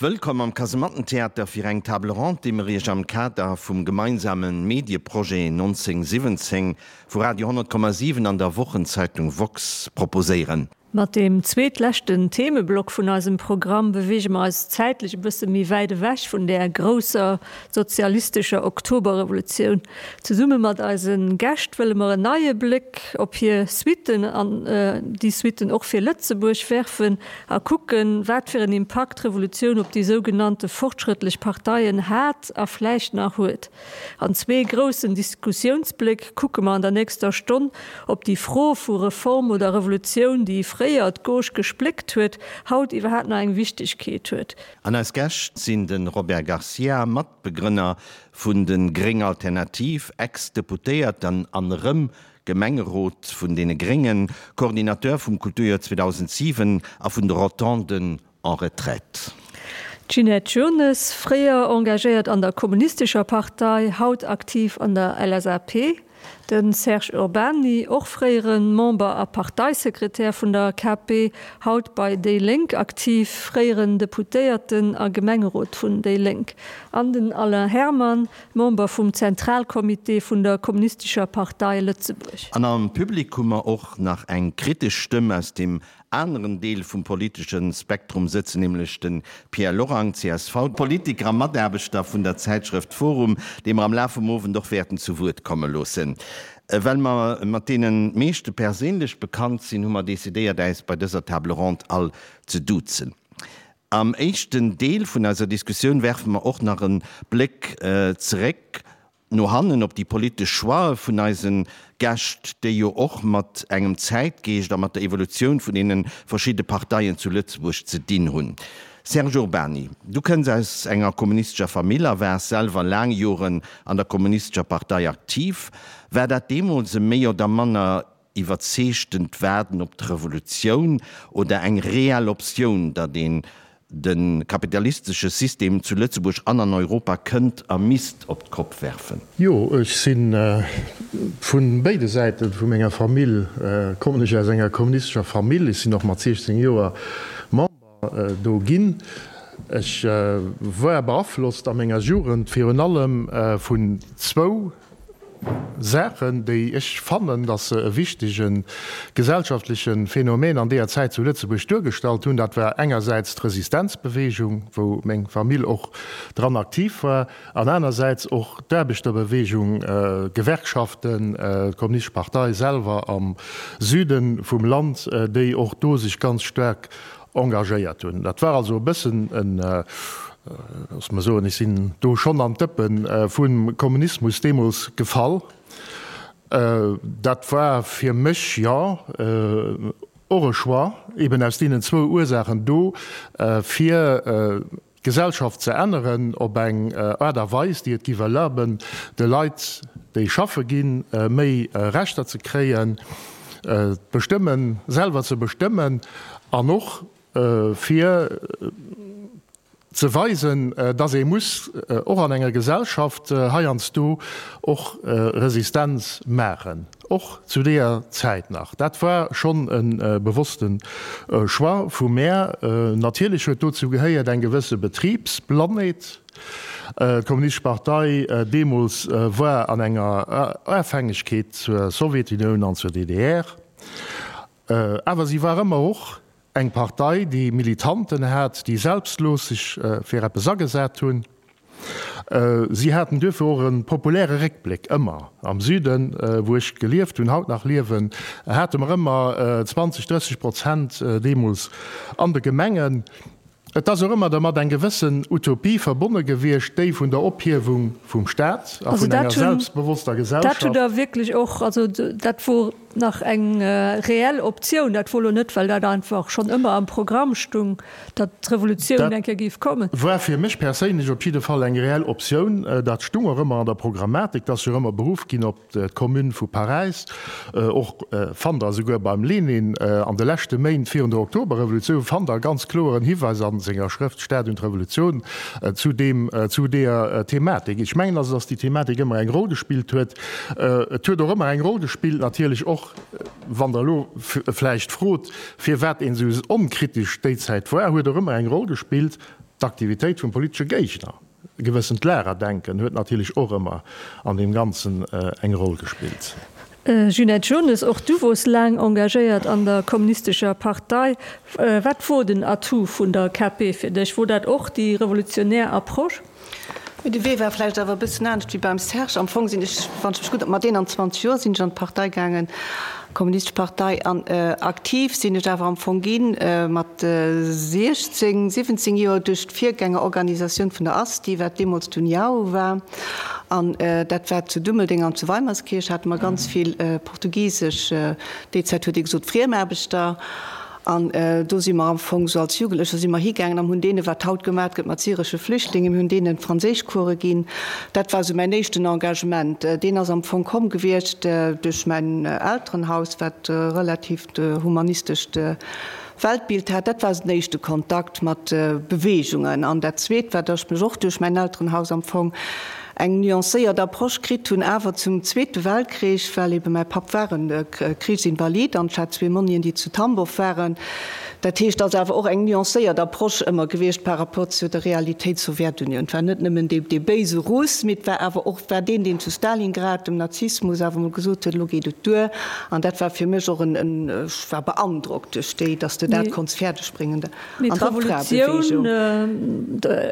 Wëllkomm am Kasemattentheater fir eng Table Ronde, déi mer Iech am Kader vum gemeinsame Medieprojet 1917 vu Radio 100,7 an der Wochenzeitung woxx proposéieren. Mat deem zweetleschten Themeblock vun eisem Programm beweege mer eis zäitlech e bësse méi wäit ewech vun där grousser sozialistescher Oktoberrevolutioun. Zesumme mat eise Gäscht wëlle mer en neie Bléck op hir Suitten an déi Suitten och fir Lëtzebuerg werfen a kucken, wat fir en Impakt d'Revolutioun op déi sougenannte fortschrëttlech Parteien hat a vläicht nach huet. An zwee groussen Diskussiounsbléck kucke mer an der nächster Stonn, ob déi Fro vu Reform oder Revolutioun, déi fréier d'Gauche gespléckt huet, haut iwwerhaapt nach eng Wichtegkeet huet. An eis Gäscht sinn de Robert Garcia, Matbegrënner vun de Gréng Alternativ, Ex-Deputéierten an erëm Gemengerot vun deene Gréngen, Coordinateur vum Kulturjoer 2007 a vun de Rotonden en retraite. D'Ginette Jones, fréier engagéiert an der Kommunistescher Partei, haut aktiv an der LSAP. De Serge Urbany, och fréiere Member a Parteisekretär vun der KP, haut bei déi Lénk aktiv, fréieren Deputéierten a Gemengerot vun déi Lénk. An den Alain Herman, Member vum Zentralcomité vun der Kommunistescher Partei Lëtzebuerg. An am Public hu mer och nach eng kritesch Stëmm aus dem aneren Deel vum politesche Spektrum sëtzen, nämlech de Pierre Lorang, csv, Politiker a Mataarbechter vun der Zäitschrëft forum, dee mer am Laf vum Owend och wäerten zu Wuert komme loossen. Well mer mat deene meeschte perséinlech bekannt sinn, hu mer decidéiert, äis bei dëser Table ronde all ze duzen. Am éischten Deel vun eiser Diskussioun werfe mer och nach e Bléck zeréck no hannen op déi politesch Choixë vun eise Gäscht, déi jo och mat engem Zäitgeescht a mat der Evolutioun vun deene verschidde Parteien zu Lëtzebuerg ze dinn hunn. Serge Urbany, du kënns aus enger kommunistescher Famill a waars selwer laang Joren an der Kommunistescher Partei aktiv. War dat deemools e méi oder manner iwwerzeegtent Waarden op d'Revolutioun oder eng reell Optioun, datt een de kapitalistesche System zu Lëtzebuerg an an Europa kënnt a misst op d'Kopp werfen? Jo, ech si vu béide Säite vu menger Famill kommen ech aus enger kommunistescher Famill. Ech sinn och mat 16 Joer Member do ginn. Ech war beaflosst a menger Jugend virun allem vun zwou Saachen, déi ech fannen, datt se e wichtege gesellschaftleche Phänomen an deeër Zäit zu Lëtzebuerg duergestallt hunn. Dat war engersäits d'Resistenzbewegung, wou meng Famill och dran aktiv war, an anersäits och d'Aarbechterbewegung, d'Gewerkschaften, d'Kommunistesch Partei selwer am Süde vum Land, déi och do sech ganz staark engagéiert hunn. Dat war also e bëssen en, loosse mer soen, ech sinn do schonn an d'Dëppe vum Kommunismus deemools gefall. Dat war fir mech, jo, och e Choix, eben aus deenen zwou Ursaachen do, fir d'Gesellschaft ze änneren op eng Aart a Weis, déi et giff erlaben, de Leit, déi schaffe ginn, méi Rechter ze kréien, d'Bestëmmen selwer ze bestëmmen an och fir ze weisen, dass ee muss och an enger Gesellschaft heiansdo och Resistenz maachen. Och zu deeër Zäit nach. Dat war schonn e bewosste Choix vu mär. Natierlech huet dozou gehéiert eng gewësse Betribsblannheet. D'Kommunistesch Partei deemools war an enger Afhängegkeet zur Sowjetunioun an zur DDR. Awer si war ëmmer och eng Partei, déi Militanten hat, déi selbstlos sech fir eppes agesat hunn. Si haten duerfir och e populäre Réckbléck, ëmmer. Am Süden, wou ech gelieft hunn, haut nach liewen, hate mer ëmmer 20, 30 Prozent deemools an de Gemengen. Et ass och ëmmer dermat eng gewëssen Utopie verbonne gewiescht, déi vun der Ophiewung vum Staat a vun enger selbstbewosster Gesellschaft. Dat hutt Der wierklech och, also dat wor nach eng reell Optioun, dat wor elo net, well dat einfach schonn ëmmer am Programm stung, datt d'Revolutioun eng Kéier géif kommen. Dat war fir mech perséinlech op jidde Fall eng reell Optioun. Dat stung och ëmmer an der Programmatik, et ass jo ëmmer beruff ginn op d'Commune vu Paräis, och fannt Der esouguer beim Lenin an de leschte Méint virun der Oktoberrevolutioun, fannt Der ganz kloeren Hiweis a senger Schrëft Staat und Revolution zu deem, zu deeër Thematik. Ech mengen also, datt déi Thematik ëmmer eng Roll gespillt huet. Et huet och ëmmer eng Roll gespillt natierlech och, wann Der elo vläicht frot, firwat een esou onkritesch déi Zäit war, huet och ëmmer eng Roll gespillt. d'Aktivitéit vum politesche Géigner. E gewëssent Lagerdenken huet natierlech och ëmmer an deem Ganzen eng Roll gespillt. Ginette Jones, och du wors laang engagéiert an der Kommunistescher Partei. Wat wor den Atout vun der KP fir dech? Wor dat och déi revolutionär Approche? Mee de Wee war vläicht awer e bëssen anescht wéi beim Serge. Am Fong sinn ech, wann ech mech gutt, mat 21 Joer sinn ech an d'Partei gaangen, d'Kommunistesch Partei, an aktiv sinn ech awer am Fong gi mat 16, 17 Joer duerch d'Virgängerorganisatioun vun der ASTI, wat deemools d'União war. An dat war zu Dummeldeng an zu Weimerskirch hate mer ganz vill portugisesch, déi Zäit huet ee gesot Friemaarbechter. An do si mer am Fong esou als Jugendlecher si mer higaangen an hunn deene wat haut gemat gëtt mat syresche Flüchtlingen, mir hunn deenen Franséischcourse ginn. Dat war esou mäin éischten Engagement. Deen ass am Fong komm gewiescht duerch mäin Elterenhaus, wat e relativt humanistescht Weltbild hat. Dat war esou den éischte Kontakt mat Beweegungen. An dat Zweet war, datt ech mech och duerch mäin Elterenhaus am Fong eng nuancéiert Approche kritt hunn, awer zum Zweete Weltkrich, well ebe mäi Papp war e Krichsinvalid an ech hat zwee Monnien, déi zu Tambow waren. Dat heescht, et ass awer och eng nuancéiert Approche ëmmer gewiescht par rapport zu der Realitéit Sowjetunioun. Et war net nëmmen dee béise Russ, mee et war awer och war deen, deen zu Stalingrad dem Nazismus awer emol gesot huet, elo geet et duer. An dat war fir mech och en, ech war beandrockt duerch déi, datt s de dat konnts fäerdegbréngen. Mee d'Revolutioun,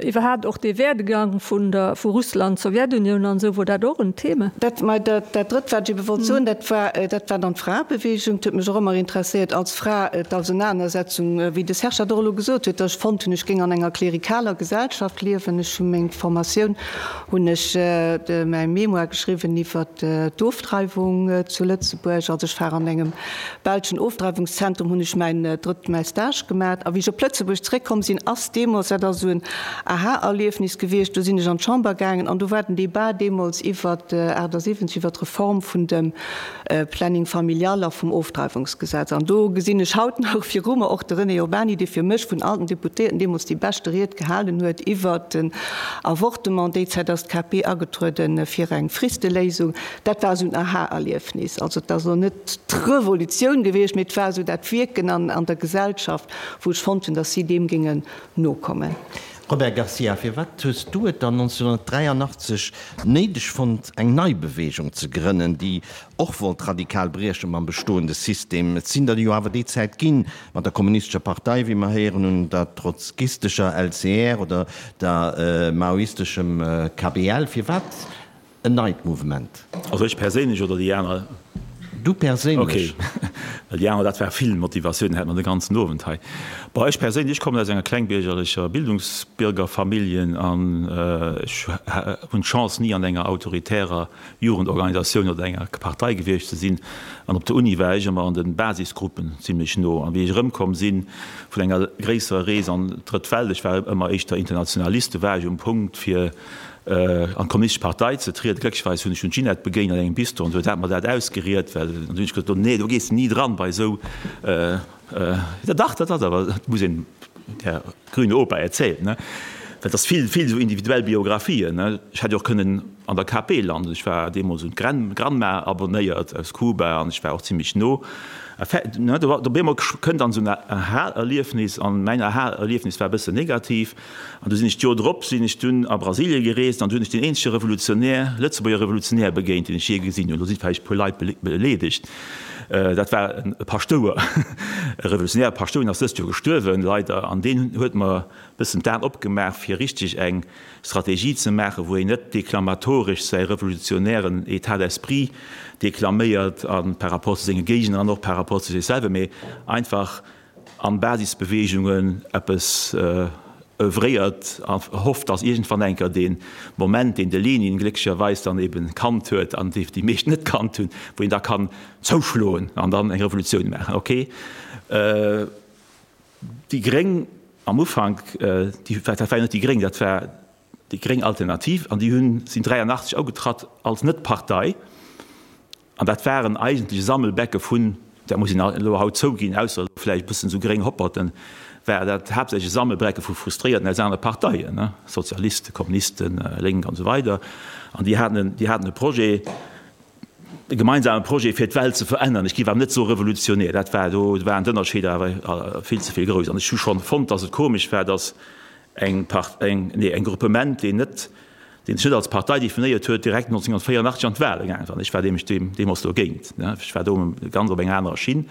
iwwerhaapt och dee Werdegang vun der, vu Russland, Sowjetunioun an esou, wor dat och en Thema? Dat, mä dat, dat Drëtt, wat ech ebe wollt soen, dat war, dat war dann d'Fraebewegung. Et huet mech och ëmmer interesséiert als Fra, d'Ausenanersetzung, wéi de Serge dat och elo gesot huet, datt ech fonnt hunn, ech géing an enger klerikaler Gesellschaft liewen. Ech hu meng Formatioun, hunn ech mäi Mémoire geschriwwen iwwer d'Ofdreiwung zu Lëtzebuerg. Also ech war an engem belschen Ofdreiwungszentrum hunn ech mäin drëtt mäi Stage gemat a wéi ech op Lëtzebuerg zréckkomm sinn, ass deemools, dat ass esou en Aha-Erliefnis gewiescht, do sinn ech an d'Chamber gaangen an do war den Debat deemools iwwert 78, iwwert d'Reform vun dem Planning familial a vum Ofdreiwungsgesetz. An do gesinn ech haut nach viru mer och de René Urbany, dee fir mech vun all den Deputéierten deemools déi beschte Ried gehalen huet iwwert den Avortement. Déi Zäit ass d'KP agetrueden fir eng Fristeléisung. Dat war esou en Aha-Erliefnis. Also et ass elo net d'Revolutioun gewiescht, mee et war esou dat Wierken an der Gesellschaft, wou ech fonnt hunn, datt si deem géingen nokommen. Robert Garcia, Firwat hues du et dann 1983 néideg fonnt, eng nei Beweegung ze grënnen, déi och wollt radikal brieche mam bestoende System? Et sinn der jo awer déi Zäit ginn, mat der Kommunistescher Partei, wéi mer héieren hunn, der trotzkistescher LCR oder der maoisteschem KPL. Firwat En neit Mouvement. Also ech perséinlech oder déi aner? Du perséinlech. Ok, well déi aner, dat war vill Motivatioun, hätt mer de ganzen Owend hei. Bon, ech perséinlech, ech kommen aus enger klengbiergerlecher Bildungsbiergerfamilljen an ech hunn d'Chance ni an enger autoritärer Jugendorganisatioun oder enger Partei gewiescht ze sinn. An op der Uni war ech ëmmer an de Basisgruppen zimlech no. An wéi ech erëmkomm si vun enger gréisserer Rees an d'Drëtt Welt, ech war ëmmer éischter Internationalist, do war ech um Punkt fir an d'Kommunistesch Partei ze trieden. Glécklecherweis hunn ech dunn d'Ginette begéint an engem Bistro an se huet dat mer dat ausgeriet, well an du hunn ech gesot, nee, do gees de ni dran bei esou, ja dach, dat ass awer, dat muss een der grüne Opa erzählen, ne, well et ass vill, vill esou individuell Biographien, ne. Ech hätt jo och kënnen an der KP landen, ech war deemools un d'Granma abonnéiert aus Kuba an ech war och zimlech no, ne, do op eemol kënnt dann esou en Aha-Erliefnis an mäin Aha-Erliefnis war e bëssen negativ. An du sinn ech d'Joer drop sinn ech dunn a Brasilie gereest an du hunn ech deen eenzege Revolutionär, Lëtzebuerger Revolutionär begéint, deen ech jee gesinn hunn. Do si vläicht e puer Leit beleedegt. Dat war e Paschtouer, e revolutionäre Paschtouer, deen ass dëst Joer gestuerwen, leider. An deen huet mer e bëssen d'Aen opgemaach, fir richteg eng Strategie ze maachen, wou een net deklamatoresch säi revolutionären État d'esprit deklaméiert a par rapport zu senge Géigner an och par rapport zu sech selwer, mee einfach, an Basisbeweegungen eppes oeuvréiert a hofft, dass iergendwann eng Kéier dee Moment, deen de Lenin glécklecherweis dann eben kannt huet an dee déi meescht net kannt hunn, wou een da kann zouschloen an dann eng Revolutioun maachen. Ok, déi Gréng am Ufank, déi, dat war jo net déi Gréng, dat war déi gréng Alternativ an déi hunn, sinn 83 agetratt als Net-Partei. An dat waren eigentlech e Sammelbecke vun, dat muss een elo haut zouginn, ausser elo vläicht e bëssen esou gréng Hopperten, war dat haaptsächlech e Sammelbrecke vu Frustréierten aus anere Parteien, ne, Sozialisten, Kommunisten, Lénk an esou weider. An déi haten, déi haten e Projet, e gemeinsame Projet fir d'Welt ze verännern. Ech géif awer net soe revolutionär, dat war, do waren d'Ënnerscheeder awer vill ze vill grouss. An ech hu schonn fonnt, datt et komesch war, datt. Eng Part, eng, nee, eng Gruppement, deen net, deen sech net als Partei definéiert huet, direkt 1984 an d'Wahle gaangen ass. An ech war nämlech deem, deemools dogéint, ne. Ech war do ganz op enger anerer Schinn.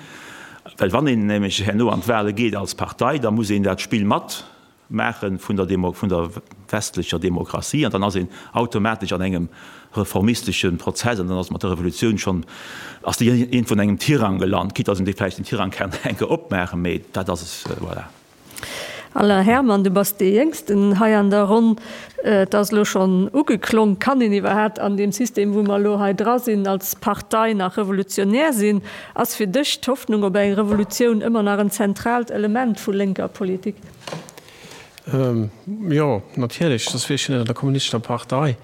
Well wann een nämlech herno an d'Wahle geet als Partei, da muss een dat Spill mat maache vun der Demo, vun der westlecher Demokratie an dann ass een automatesch an engem reformistesche Prozess an dann ass mat der Revolutioun schonn, ass déi iergendwou an engem Tirang gelant, quitte dass een dee vläicht den Tirang kann eng Kéier opmaachen, mee dat ass es, voilà. Alain Herman, du bass dee Jéngsten hei an der Ronn. Et ass elo schonn ugeklong, Kann een iwwerhaapt an deem System, wou mer elo hei dra sinn, als Partei nach revolutionär sinn? Ass fir dech d'Hoffnung op eng Revolutioun ëmmer nach en zentraalt Element vu lénker Politik? Jo, natierlech, soss wier ech jo net an der Kommunistescher Partei.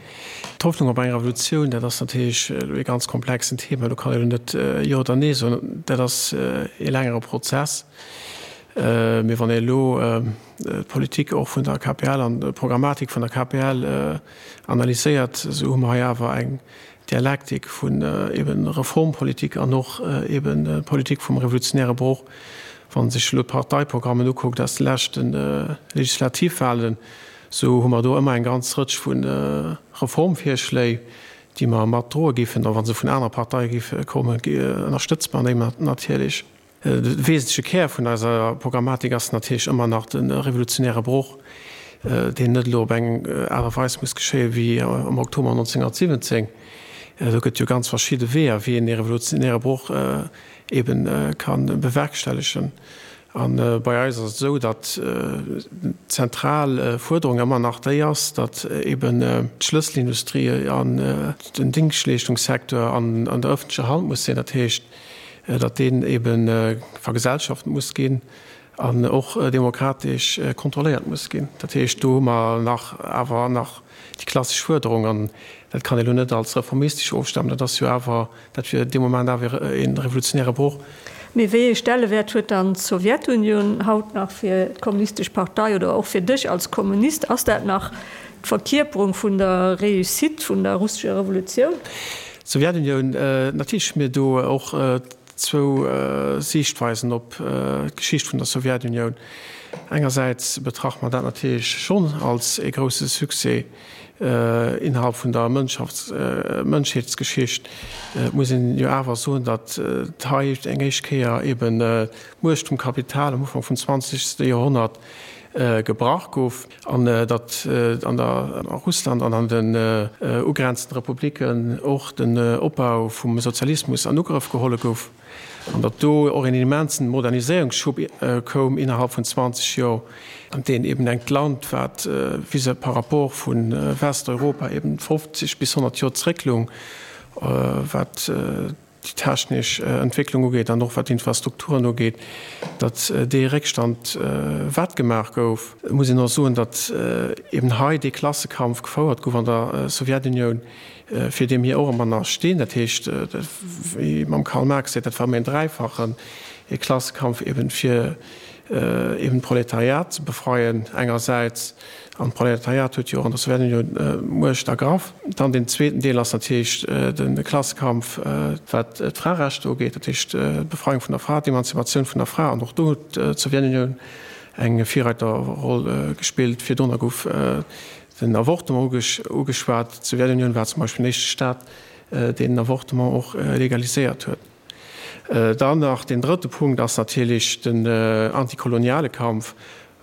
D'Hoffnung op eng Revolutioun, dat ass natierlech elo ee ganz komplexen Thema. Do kann een elo net Jo oder Nee soen. Dat ass ee längere Prozess. Mee wann ee elo d'Politik och vun der KPL an d'Programmatik vun der KPL analyséiert, esou hu mer hei awer eng Dialektik vun eben Reformpolitik an och eben Politik vum revolutionäre Broch. Wann ee sech elo d'Parteiprogrammen ukuckt aus de leschte Legislativwahlen, esou hu mer do ëmmer eng ganz Rëtsch vu Reformvirschléi, déi mer mat droe géifen, a wa se vun anere Parteie géife kommen, ënnerstëtze mer déi natierlech. De wesentleche Kär vun eiser Programmatik ass natierlech ëmmer nach de revolutionäre Broch, deen net elo op eng Aart a Weis muss geschéie wéi am Oktober 1917. Do gëtt jo ganz verschidde Weeër, wéi een dee revolutionäre Broch ebe ka bewerkstellegen. A bei eis ass et esou, datt d'zentral Fuerderung ëmmer nach déi ass, datt eben d'Schlësselindustrie an den Dingschtleeschtungssecteur an der ëffentlecher Hand muss sinn. Dat heescht, datt deen ebe vergesellschaft muss ginn an och demokratesch kontrolléiert muss ginn. Dat heescht, do hu mer nach awer nach déi klassesch Fuerderung, an dat kann ee lo net als reformistesch ofstempelen, dat ass jo awer, dat wier dee Moment awer e revolutionäre Broch. Mee wéi ee Stellewäert huet dann d'Sowjetunioun haut nach fir d'Kommunistesch Partei oder och fir dech als Kommunist? Ass dat nach D'Verkierperung vun der Réussite vun der russescher Revolutioun. D'Sowjetunioun, natierlech hu mir do och zwou Siichtweisen op d'Geschicht vun der Sowjetunioun. Engersäits betrachte mer dat natierlech schonn als ee grousse Succès innerhalb vun der Mënschheetsgeschicht. Et muss een jo awer soen, datt hei eng éischt Kéier eben d'Muecht vum Kapital am Ufank vum zwanzegste Joerhonnert gebrach gouf an datt an der a Russland an an den ugrenzende Republiken och den Opbau vum Sozialismus an Ugrëff geholle gouf an datt do och een immensen Moderniséierungsschub koum innerhalb vun 20 Joer, an deen eben engt Land, wat vis par rapport vu Westeuropa eben 50 bis 100 Joer zréckloung, wat déi technesch Entwécklung ugeet an och wat d'Infrastrukturen ugeet, datt dee Réckstand wettgemaach gouf. Et muss een och soen, datt eben hei dee Klassekampf gefouert gouf an der Sowjetunioun, fir dee mir och ëmmer nach stinn. Dat heescht, wéi mam Karl Marx seet, dat war ëmmer een dräifachen, ee Klassekampf eben fir eben d'Proletariat ze befreien engersäits, An d'Proletariat huet jo och an der Sowjetunioun d'Muecht ergraff. Dann deen zweeten Deel ass natierlech de Klassekampf, wat d'Fraerechter ugeet, dat heescht d'Befreiung vun der Fra, d'Emanzipatioun vun der Fra. An och do huet d'Sowjetunioun eng Virreiterroll gespillt. Virdrunner gouf den Avortement ugeschwat. D'Sowjetunioun war zum Beispill den éischte Staat, deen den Avortement och legaliséiert huet. Dann nach deen drëtte Punkt ass natierlech den antikoloniale Kampf,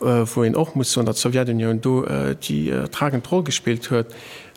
wou een och muss soen, datt d'Sowjetunioun do déi tragend Roll gespillt huet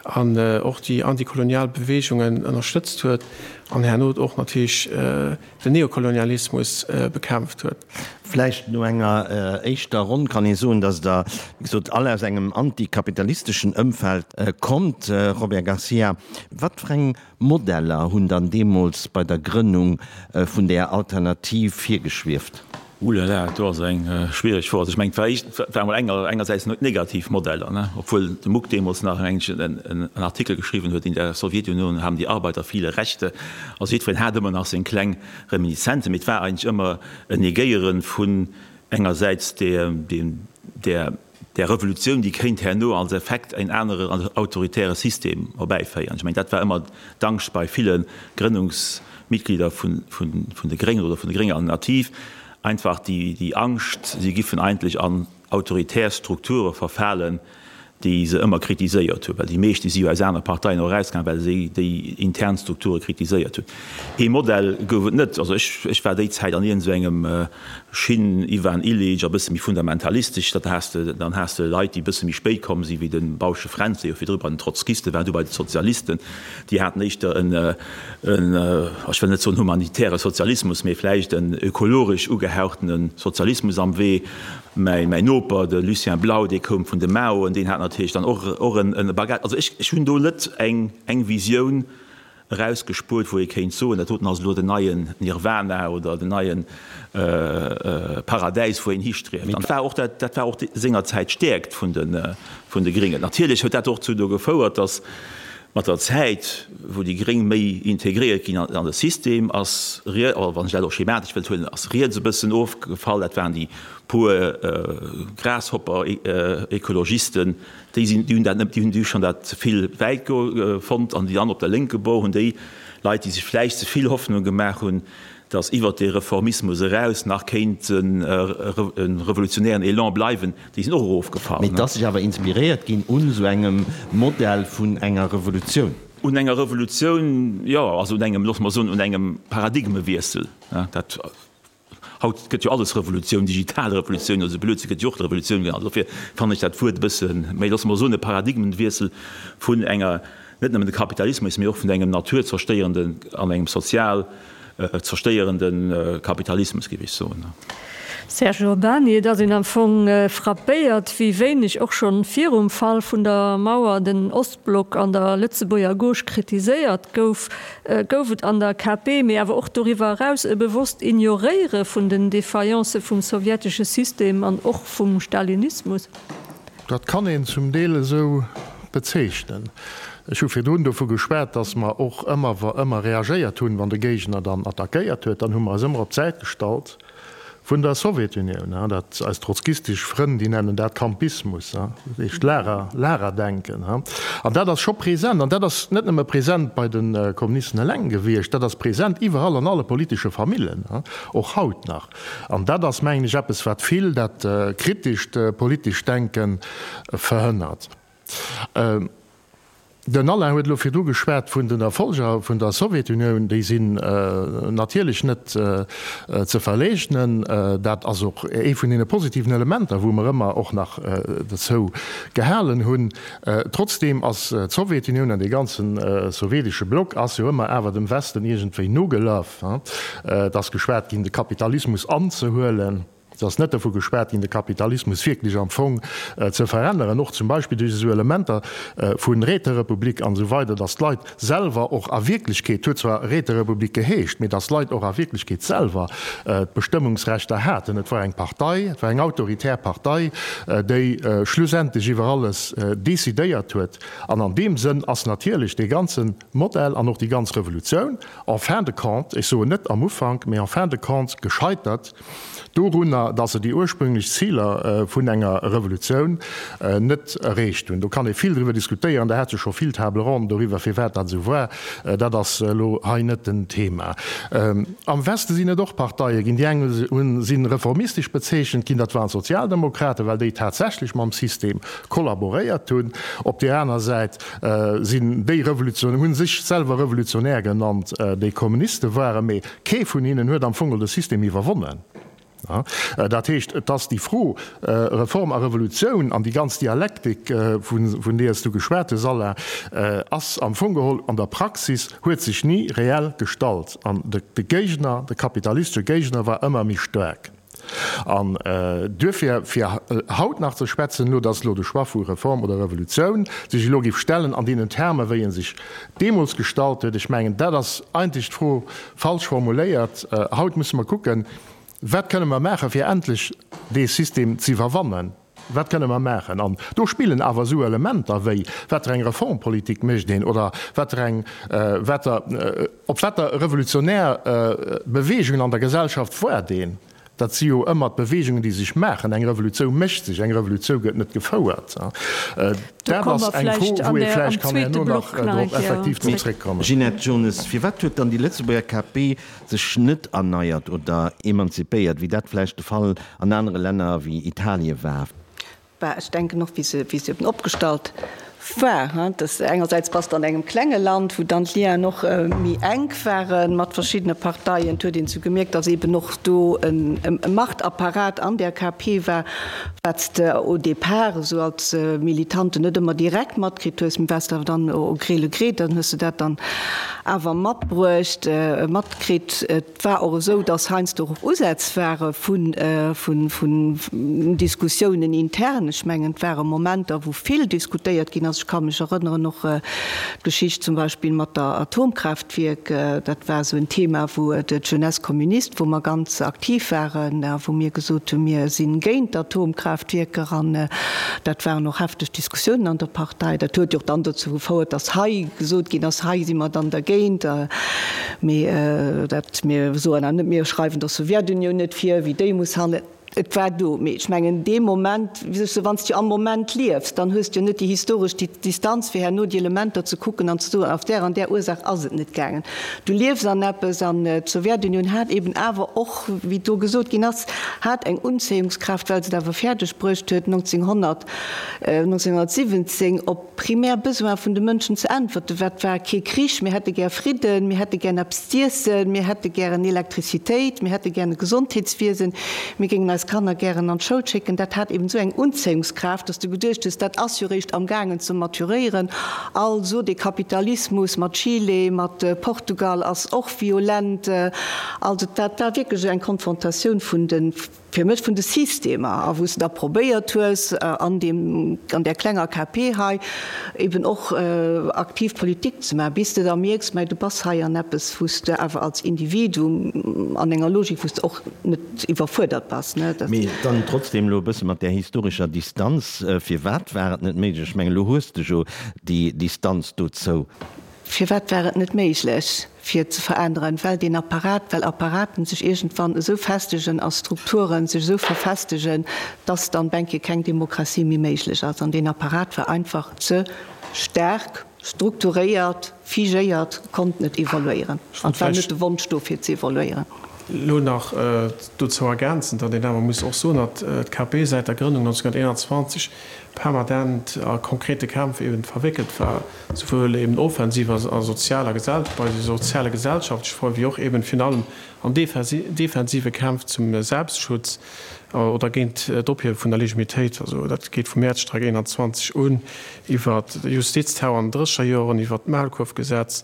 an och déi antikolonial Beweegungen ënnerstëtzt huet an herno och natierlech den Neokolonialismus bekämpft huet. Vläicht no enger éischter Ronn kann ee soen, datt Der, wéi gesot, all aus engem antikapitalisteschen Ëmfeld kommt. Robert Garcia, wat fir eng Modeller hunn dann deemools bei der Grënnung vun där Alternativ virgeschwieft? Oulala, do ass eng schwiereg Fro. Also ech mengen, et war éischt, et war emol enger, engersäits negativ Modeller, ne, obwuel de Muck deemools nach en en Artikel geschriwwen huet, In der Sowjetunion haben die Arbeiter viele Rechte. Also jiddwereen hat ëmmer nach seng kleng Reminiszenzen, mee et war eigentlech ëmmer en Negéiere vun engersäits deem, där där Revolutioun, déi kéint herno als Effekt en anere autoritäre System erbäiféieren. Ech mengen, dat war ëmmer d'Angscht bei ville Grënnungsmitglieder vun de Gréngen oder vun der grénger Alternativ, einfach déi Angscht, si giffen eigentlech an. autoritär Strukture verfalen, déi se ëmmer kritiséiert hunn, well déi meescht, déi si jo aus anere Parteien och erausgaangen, well se déi intern Strukture kritiséiert hunn. Ee Modell gouf et net. Also ech, ech war déi Zäit an iergend esou engem Schinn, Ivan Illich a bësse méi fundamentalistesch, dat has de, dann has de Leit, déi e bësse méi spéit komm sinn, wéi de Bausche Fränz, dee jo virdru bei den Trotzkiste war, du bei de Sozialisten, déi haten éischter en, en, ech wëll net soen humanitäre Sozialismus, mee vläicht en ökologesch ugehauchtene Sozialismus am Wee. Mäi Noper, de Lucien Blau, dee koum vun de Maoen, deen hat natierlech dann och och en Bagage. Also ech, ech hunn do net eng, eng Visioun erausgespuert, wou ee kéint soen, dat doten ass elo den neien Nirvana oder den neie Paradäis, wou een histrieft. An dat war och dat, dat war och sengerzäit d'Stäerkt vun de, vun de Gréngen. Natierlech huet dat och dozou gefouert, datt Mat der Zäit, wou déi Gréng méi integréiert ginn an de System, ass, wann ech dat och schematesch wëllt huelen, ass riets e bëssen ofgefall. Dat waren déi puer Grasshopper-Ekologisten, déi sinn, déi hunn dat net, déi hunn déi hu schonn dat ze vill wäit fonnt. An déi aner op der lénke Bord hunn déi Leit, déi sech vläicht ze vill Hoffnung gemaach hunn, datt iwwert dee Reformismus eraus nach kéint e revolutionären Elan bleiwen, Déi sinn och erofgefall. Mee et ass sech awer inspiréiert ginn un esou engem Modell vun enger Revolutioun. Un enger Revolutioun, jo, also un engem, loosse mer soen, un engem Paradigmewiessel. Dat, haut gëtt jo alles Revolutioun, digital Revolutioun oder esou Blödsinn gëtt jo och Revolutioun genannt. Dofir fannen ech dat Wuert e bësse méi, loosse mer soen, e Paradigmenwiessel vun enger, net nëmmen de Kapitalismus, mee och vun engem naturzerstéierenden an engem sozial zerstéierende Kapitalismus, géif ech soen. Serge Urbany, Et ass een am Fong frappéiert, wéi wéineg och schonn virum Fall vun der Mauer den Ostblock an der Lëtzebuerger Gauche kritiséiert gouf. Gouf et an der KP, mee awer och doriwwer eraus, e bewosst Ignoréiere vun den Défaillance vum sowjetesche System an och vum Stalinismus? Dat kann een zum Deel esou bezeechnen. Ech hu virdrun dovu geschwat, dass mer och ëmmer ëmmer reagéiert hunn, wann de Géigner dann attackéiert huet. Dann hu mer eis ëmmer op d'Säit gestallt vun der Sowjetunioun. Dat, eis trotzkistesch Frënn, déi nennen dat Campismus, dat heescht Lager, Lagerdenken. An dat ass scho present. An dat ass net nëmme present bei de Kommunisten eleng gewiescht, dat ass present iwwerall an alle politesche Famillen, och haut nach. An dat ass, mengen ech, eppes, wat vill dat kritescht politescht Denke verhënnert. Den Alain huet elo virdru geschwat vun den Erfolger vun der Sowjetunioun. Déi sinn natierlech net ze verleegnen. Dat ass och ee vun deene positiven Elementer, wou mer ëmmer och nach dozou gehalen hunn. Trotzdeem ass d'Sowjetunioun an dee ganze sowjetesche Block ass jo ëmmer awer dem Westen iergendwéi nogelaf. Et ass geschwat ginn, de Kapitalismus anzehuelen. Et ass net dovu geschwat ginn, de Kapitalismus wierklech am Fong ze veränneren, och zum Beispill duerch esou Elementer vu Räterepublik an esou weider, datt d'Leit selwer och a Wierklechkeet, huet zwar Räterepublik geheescht, mee datt d'Leit och a Wierklechkeet selwer d'Bestëmmungsrechter haten. Et war eng Partei, et war eng autoritär Partei, déi schlussendlech iwwer alles decidéiert huet. An an deem Sënn ass natierlech dee ganze Modell an och déi ganz Revolutioun en fin de compte, ech soen net am Ufank, mee en fin de compte gescheitert dorunner, datt se déi ursprünglech Ziler vun enger Revolutioun net erreecht hunn. Do kann ee vill driwwer diskutéieren, der hat jo scho vill Table ronden doriwwer, firwat dat esou war. Dat ass elo hei net den Thema. Am Weste sinn et och Parteie ginn, déi eng hunn, si reformistesch bezeechent ginn, dat waren d'Sozialdemokraten, well déi tatsächlech mam System kollaboréiert hunn. Op där aner Säit sinn déi Revolution, hu sech selwer Revolutionär genannt, déi Kommuniste waren, mee kee vun hinnen huet am Fong de System iwwerwonnen. Dat heescht, et ass déi Fro Reform a Revolutioun an déi ganz Dialektik, vun deeër s du geschwat hues, Alain, ass am Fong geholl an der Praxis, huet sech ni reell gestallt. An de Géigner, de kapitalistesche Géigner war ëmmer méi staark. An duerfir, fir haut nach ze schwätzen, elo dass elo de Choix vu Reform oder Revolutioun sech elo géif stellen an deenen Termen, wéi e sech deemools gestallt huet, ech mengen, dat ass eigentlech d'Fro falsch formuléiert. Haut musse mer kucken, Wat kënne mer maachen, fir endlech dee System ze iwwerwannen? Wat kënne mer maachen? An do spillen awer esou Elementer wéi, wat fir eng Reformpolitik mécht een oder wat fir eng, wat der, op wat der revolutionär Beweegungen an der Gesellschaft woart een. Dat si jo ëmmer d'Beweegungen, déi sech maachen. Eng Revolutiou mécht sech, eng Revolutiou gëtt net gefouert. Dat ass eng Fro, wou ee vläicht kann herno nach drop effektiv drop zréckkommen. Ginette Jones, Firwat huet dann déi Lëtzebuerger KP sech net erneiert oder emanzipéiert, wéi dat vläicht de Fall an anere Länner wéi Italie war? Bah, ech denken och, wéi se, wéi se eben opgestallt war, hein, dass engersäits bass de an engem klenge Land, wou dann d'Lienen och méi enk ware mat verschiddene Parteien. Et huet een sou gemierkt, dass eben och do e Machtapparat an där KP war, wat s de au départ esou als Militante net ëmmer direkt matkritt hues, mee wat s de awer dann au gré le gré, dann hues de dat dann awer matbruecht, matkritt. Et war och esou, dass heiansdo och Usätz ware vun Diskussiounen intern. Ech mengen, et ware Momenter, wou vill diskutéiert ginn ass. Ech ka mech erënneren och d'Geschicht zum Beispill mat der Atomkraaftwierk. Dat war esou en Thema, wou d'Jeunesse communiste, wou mer ganz aktiv waren a wou mir gesot hunn, mir si géint d'Atomkraaftwierker. An dat waren och hefteg Diskussiounen an der Partei. Dat huet jo och dann dozou gefouert, dass hei gesot ginn ass, hei si mer dann dergéint. Mee dat mir soen awer net, mir schreiwen der Sowjetunioun net vir, wéi déi muss handelen. Et war do. Mee ech mengen, dee Moment, wéi soll ech soen, wann s du am Moment liefs, dann hues du jo net déi historesch Distanz, fir herno déi Elementer ze kucken an ze soen, auf där an där Ursaach ass et net gaangen. Du liefs an eppes an d'Sowjetunioun hat eben awer och, wéi do gesot ginn ass, hat eng Unzéiungskraaft, well se et awer fäerdeg bruecht huet, 1900, 1917 op Primär Besoin vun de Mënschen ze äntwerten. Wat war? Kee Krich, mir hätte gär Fridden, mir hätte gären eppes z'iessen, mir hätte gären Elektrizitéit, mir hätte gären e Gesondheetswiesen, mir géingen eis Kanner gären an d'Schoul schécken. Dat hat eben esou eng Unzéiungskraaft, dass du geduecht hues, dat ass jo réischt amgaangen ze maturéieren. Also dee Kapitalismus mat Chile, mat Portugal ass och violent. Also dat war wierklech esou eng Konfrontatioun vun de. fir mech vun de Systemer, a wou s de da probéiert hues, an deem, an där klenger KP hei eben och aktiv Politik ze maachen, bis de da mierks, mä du bass hei an eppes, wou s de awer als Individuum an enger Logik, wou s de och net iwwerfuerdert bass, ne. Mee dann trotzdem elo e bësse mat där historescher Distanz, Firwat war et net méiglech? Ech mengen, elo hues de jo déi Distanz dozou. Firwat war et net méiglech, fir ze veränneren? Well deen Apparat, well Apparaten sech iergendwann esou festegen a Strukturen sech esou verfestegen, dass dann benke keng Demokratie méi méiglech ass. An deen Apparat war einfach ze staark strukturéiert, figéiert, konnt net evoluéieren. An et war net de Wonsch do, fir ze evoluéieren. Elo nach dozou ergänzen, datt een awer muss och soen, datt d'KP säit der Grënnung 1921 permanent a konkrete Kämpf eben verwéckelt war, souwuel eben offensiv a sozialer Gesell bei soziale gesellschaftleche Froen, wéi och eben virun allem an defensive Kämpf zum Selbstschutz oder géint d'Ophiewe vun der Legimitéit. Also dat geet vum Mäerzstreik 21 un, iwwer de Justizterror an den drësseger Joren, iwwer d'Maulkuerfgesetz,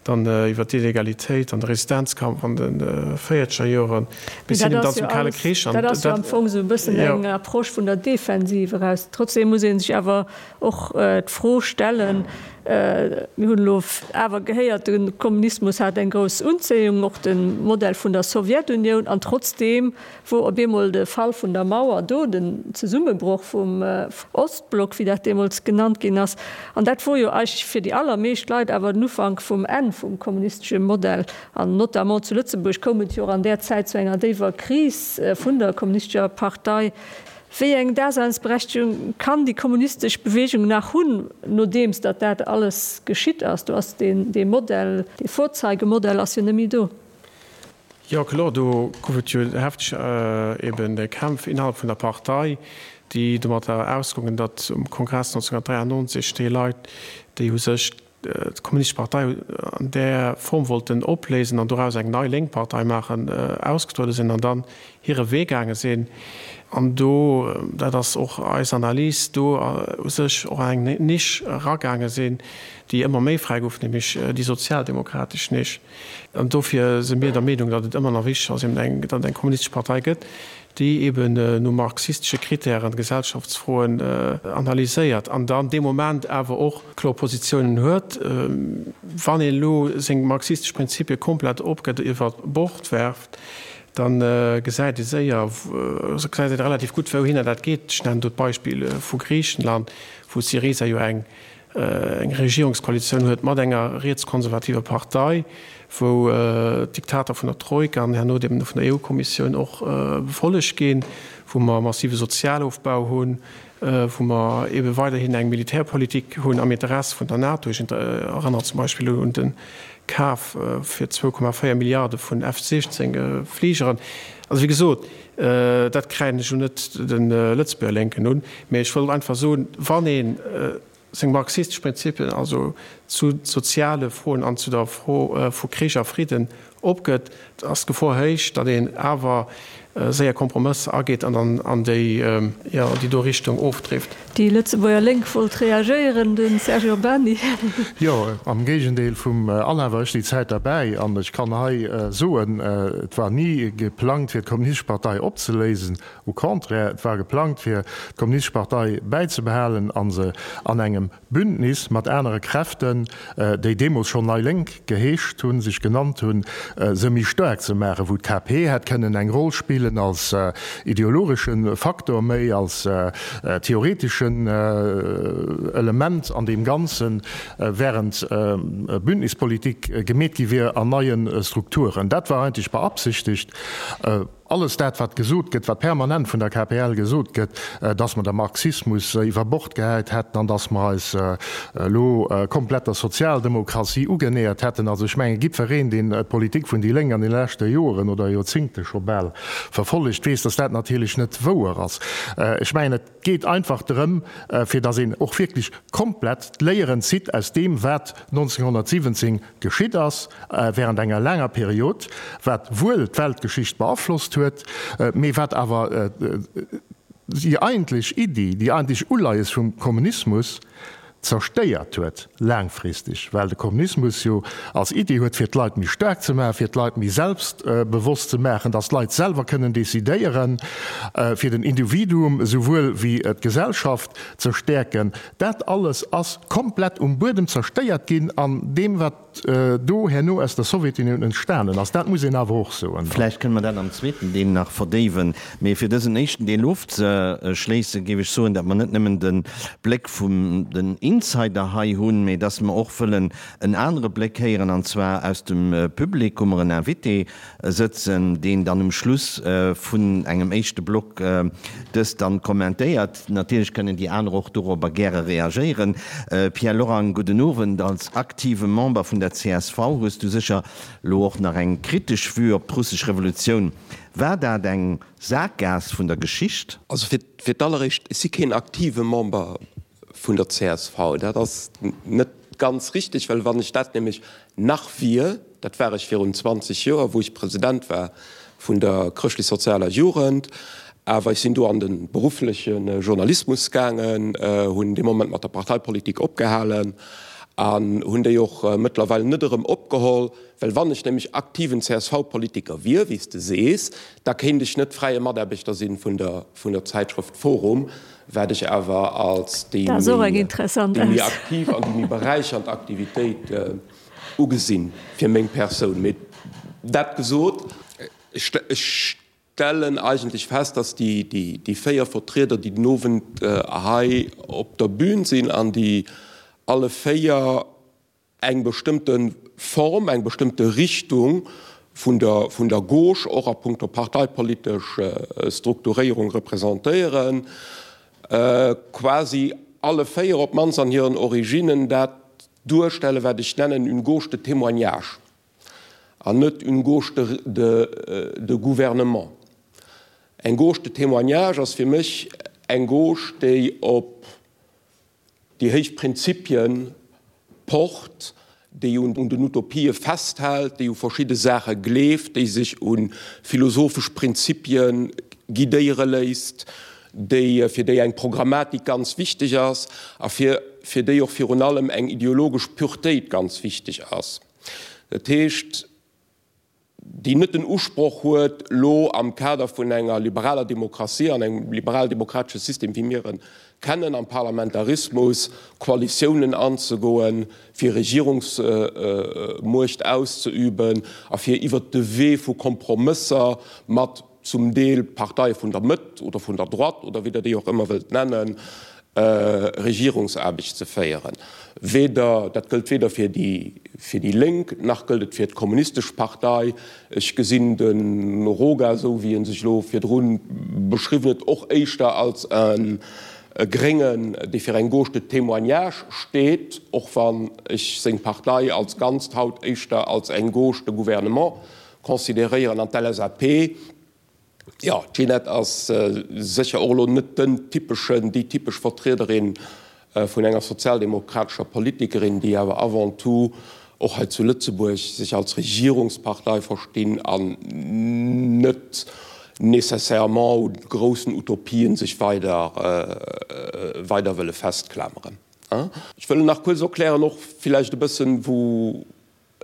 dann iwwer d'Illegalitéit an de Resistenzkampf an de véierzeger Joren, bis hin dann zum Kale Krich. Dat ass jo am Fong esou e bëssen eng Approche vun der Defensiv eraus. Trotzdem muss ee sech awer och d'Fro stellen, mir hunn elo awer gehéiert, de Kommunismus hat eng grouss Unzéiung, och de Modell vun der Sowjetunioun, an trotzdeem wor op eemol de Fall vun der Mauer do, den Zesummebroch vum Ostblock, wéi dat deemools genannt ginn ass. An dat wor jo eigentlech fir déi allermeescht Leit awer den Ufank vum Enn vum kommunistesche Modell. An notamment zu Lëtzebuerg koum et jo och an där Zäit zu enger déiwer Kris vun der kommunistescher Partei. Wéi eng Daseinsberechtigung kann déi kommunistesch Bewegung nach hunn, nodeems datt dat alles geschitt ass? Do ass deen, dee Modell, dee Vorzeigemodell ass jo net méi do. Jo kloer, do gouf et jo hefteg eben Kämpf innerhalb vun der Partei, déi domatter ausgongen, datt um Kongress 1993 déi Leit, déi u sech d'Kommunistesch Partei an där Form wollten opléisen an doraus eng nei lénk Partei maachen, ausgetruede sinn an dann hire Wee gaange sinn. An do, dat ass och eis Analys, do u sech och an eng Nisch eragaange sinn, déi ëmmer méi fräi gouf, nämlech déi sozialdemokratesch Nisch. An dofir si mir der Meenung, datt et ëmmer nach wichteg ass, eben eng, datt et eng kommunistesch Partei gëtt, déi eben no marxistesche Kritären Gesellschaftsfroen analyséiert an dann dee Moment awer och kloer Positiounen huet. Wann een elo seng marxistesch Prinzipie komplett opgëtt, iwwer Bord werft, da gesäit ee séier, gesäit een relativ gutt, wouhinner dat geet. Ech nennen do d'Beispill vu Griichenland, wou Syriza jo eng eng Regierungskoalitioun huet mat enger rietskonservativer Partei, wou d'Diktater vun der Troika an herno deem vun der EU-Kommissioun och befollegt ginn, wou mer massive Sozialofbau hunn, wou mer ebe weiderhin eng Militärpolitik hunn am Interesse vun der NATO. Ech erënnere zum Beispill un de. Kaf fir 2,4 Milliarde vun F 16 Fligeren. Also wéi gesot, dat kräiden ech elo net de Lëtzebuerger Lénken un, mä ech wollt einfach soen, wann ee seng marxistesch Prinzipien, also zu soziale Froen an zu der Fro vu Krich a Fridden opgëtt, ass d'Gefor héich, datt een awer séier Kompromësser ageet an dann an déi, jo, an déi do Richtung ofdrift. Déi Lëtzebuerger Lénk wollt reagéieren, de Serge Urbany. Jo, am Géigendeel vum Alain war ech déi Zäit derbäi an ech kann hei soen, et war ni geplangt fir d'Kommunistesch Partei opzeléisen. Au contraire, et war geplangt fir d'Kommunistesch Partei bäizebehalen a se an engem Bündnis mat anere Kräften, déi deemools schonn Nei Lénk geheescht hunn, sech genannt hunn, se méi staark ze maachen, wou d'KP hätt kënnen eng Roll spillen als ideologesche Faktor méi, als theoreteschen Element an deem Ganzen, während Bündnispolitik gemeet gi wier an neie Strukturen. Dat war eigentlech beabsichtegt. Alles dat, wat gesot gëtt, wat permanent vun der KPL gesot gëtt, dass mer de Marxismus iwwer Bord gehäit hätten an dass mer eis elo komplett der Sozialdemokratie ugenähert hätten, also ech mengen, jiddwereen, deen d'Politik vun déi Lénk an de leschte Joren oder Joerzingte scho bal verfollegt, weess, dass dat natierlech net wouer ass. Ech mengen, et geet einfach drëm, fir dass een och wierklech komplett d'Léieren zitt aus deem, wat 1917 geschitt ass während enger laanger Period, wat wuel d'Weltgeschicht beaflosst huet, mee wat awer déi eigentlech Iddi, déi eigentlech Uleies vum Kommunismus zerstéiert huet laangfristeg, well de Kommunismus jo als Iddi huet, fir d'Leit méi staark ze maachen, fir d'Leit méi selbstbewosst ze maachen, datt d'Leit selwer kënnen decidéieren, fir den Individuum esouwuel wéi d'Gesellschaft ze stäerken. Dat alles ass komplett um Buedem zerstéiert ginn an deem, wat do herno aus der Sowjetunioun entstanen ass. Dat muss een awer och soen. Vläicht kënne mer dat am zweeten Deel nach verdéiwen. Mee fir dësen éischten Deel ofzeschléissen, géif ech soen, datt mer net nëmmen de Bléck vum den Insider hei hunn, mee datt mer och wëllen en anere Bléck héieren, an zwar aus dem Public hu mer en Invité sëtzen, deen dann um Schluss vun engem éischte Block dëst dann kommentéiert. Natierlech kënnen déi aner och dorobber gäre reagéieren. Pierre Lorang, gudden Owend. Als aktive Member vun der csv hues du sécher lo och nach eng kritesch Vue op d'russesch Revolutioun. War dat eng Saakgaass vun der Geschicht? Also fir d'alleréischt, ech si keen aktive Member vun der csv. Dat ass net ganz richteg, well wann ech dat nämlech nach wier, dat war ech virun 20 Joer, wou ech President war vun der chrëschtlech-sozialer Jugend, awer ech sinn do an de beruffleche Journalismus gaangen, hunn dee Moment mat der Parteipolitik opgehalen an hunn déi och mëttlerweil net erëm opgeholl, well wann ech nämlech aktiven CSV-Politiker wier, wéi s de sees, da kéint ech net fräie Mataarbechter sinn vun der vun der Zäitschrëft Forum, wat ech awer als déi méi aktiv an déi méi beräichernd Aktivitéit ugesinn fir meng Persoun. Mee dat gesot, ech stellen eigentlech fest, dass déi 4 Vertrieder, déi den Owend hei op der Bühn sinn an déi alle 4 eng bestëmmte Form, eng bestëmmte Richtung vun der, vun der Gauche och a puncto parteipolitesch Strukturéierung representéieren, quasi alle 4 op d'mannst an hiren Originnen dat duerstellen, wat ech nennen une gauche de témoignage an net une gauche de, de, de gouvernement. Eng gauche de témoignage ass fir mech eng Gauche, déi op déi héich Prinzipien pocht, déi un den Utopië festhält, déi u verschidde Saache gleeft, déi sech u philosophesch Prinzipie guidéiere léisst, déi, fir déi eng Programmatik ganz wichteg ass a fir, fir déi och virun allem eng ideologesch Puretéit ganz wichteg ass. Dat heescht, déi net den Usproch huet, elo am Kader vun enger liberaler Demokratie an engem liberal-demokratesche System, wéi mir en kennen, am Parlamentarismus, Koalitiounen anzegoen, fir Regierungsmuecht auszeüben a fir iwwert de Wee vu Kompromësser mat zum Deel Parteie vun der Mëtt oder vun der Droite oder wéi Der déi och ëmmer wëllt nennen, Regierungsaarbecht ze féieren. Weder, dat gëllt weder fir déi, fir déi Lénk, nach gëllt et fir d'Kommunistesch Partei. Ech gesinn de Roga, esou wéi e sech elo virdru beschriwwen huet, och éischter als e. E Gréngen, dee fir eng Gauche de témoignage steet, och wann ech seng Partei als Ganzt haut éischter als eng Gauche de gouvernement consideréieren. An d'LSAP, jo, d'Ginette ass sécher och elo net den typeschen, déi typesch Vertriederin vun enger sozialdemokratescher Politikerin, déi awer avant tout och hei zu Lëtzebuerg sech als Regierungspartei verstinn an net nécessairement u groussen Utopien sech weider weider wëlle festklameren. Ech wëll nach kuerz erklären och villäicht e bëssen, wou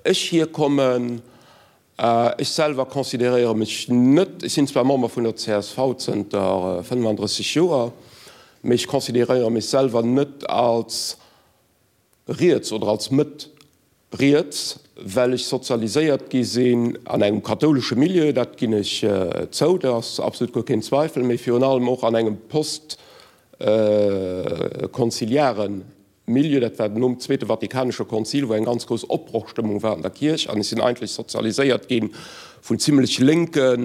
ech hierkommen. Ech selwer consideréiere mech net, ech sinn zwar Member vun der csv zënter 35 Joer, mee ech consideréiere mech selwer net als riets oder als Mëtt riets, well ech sozialiséiert gi sinn an engem kathoulesche Milieu, dat ginn ech zou, do ass absolut guer keen Zweifel, mee virun allem och an engem postkonziliare Milieu, dat war nom Zweete Vatikanesche Konzil, wou eng ganz grouss Opbrochstëmmung war an der Kierch, an ech sinn eigentlech sozialiséiert gi vun zimlech lénke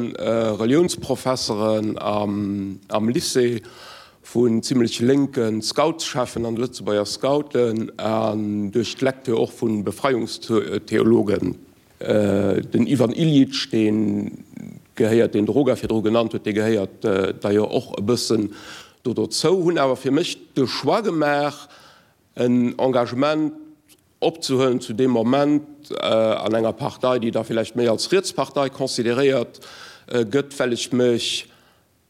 Reliounsprofesseren am Lycée, vun zimlech lénke Scoutscheffen an de Lëtzebuerger Scouten an duerch d'Lecture och vu Befreiungstheologen. Den Ivan Illich, dee gehéiert, deen de Roga virdru genannt huet, dee gehéiert d'ailleurs och e bëssen do dozou, hunn awer fir mech de Choix gemaach, en Engagement opzehuelen zu deem Moment an enger Partei, déi da villäicht méi als Rietspartei consideréiert gëtt, well ech mech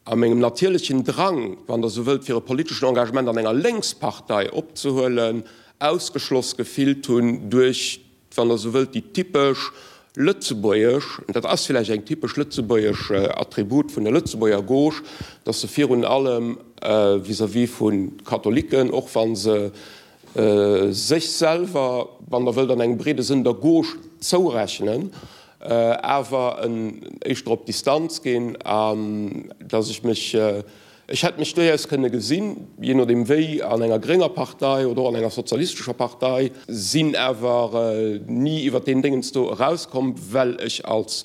A mengem natierlechen Drang, wann Der esou wëllt, fir e politeschen Engagement an enger Lénkspartei opzehuelen, ausgeschloss gefillt hunn duerch, wann Der esou wëllt, déi typesch lëtzebuergesch, an dat ass villäicht eng typesch lëtzebuergesch Attribut vun der Lëtzebuerger Gauche, dass se virun allem vis-à-vis vu Katholiken, och wa se sech selwer, wann Der wëllt, an engem breede Sënn der Gauche zourechnen, awer éischter op Distanz ginn an dass ech mech, ech hätt mech duerchaus kënne gesinn, jee nodeem wéi, an enger grénger Partei oder och an enger sozialistescher Partei, sinn awer ni iwwert deen Déngens do erauskomm, well ech als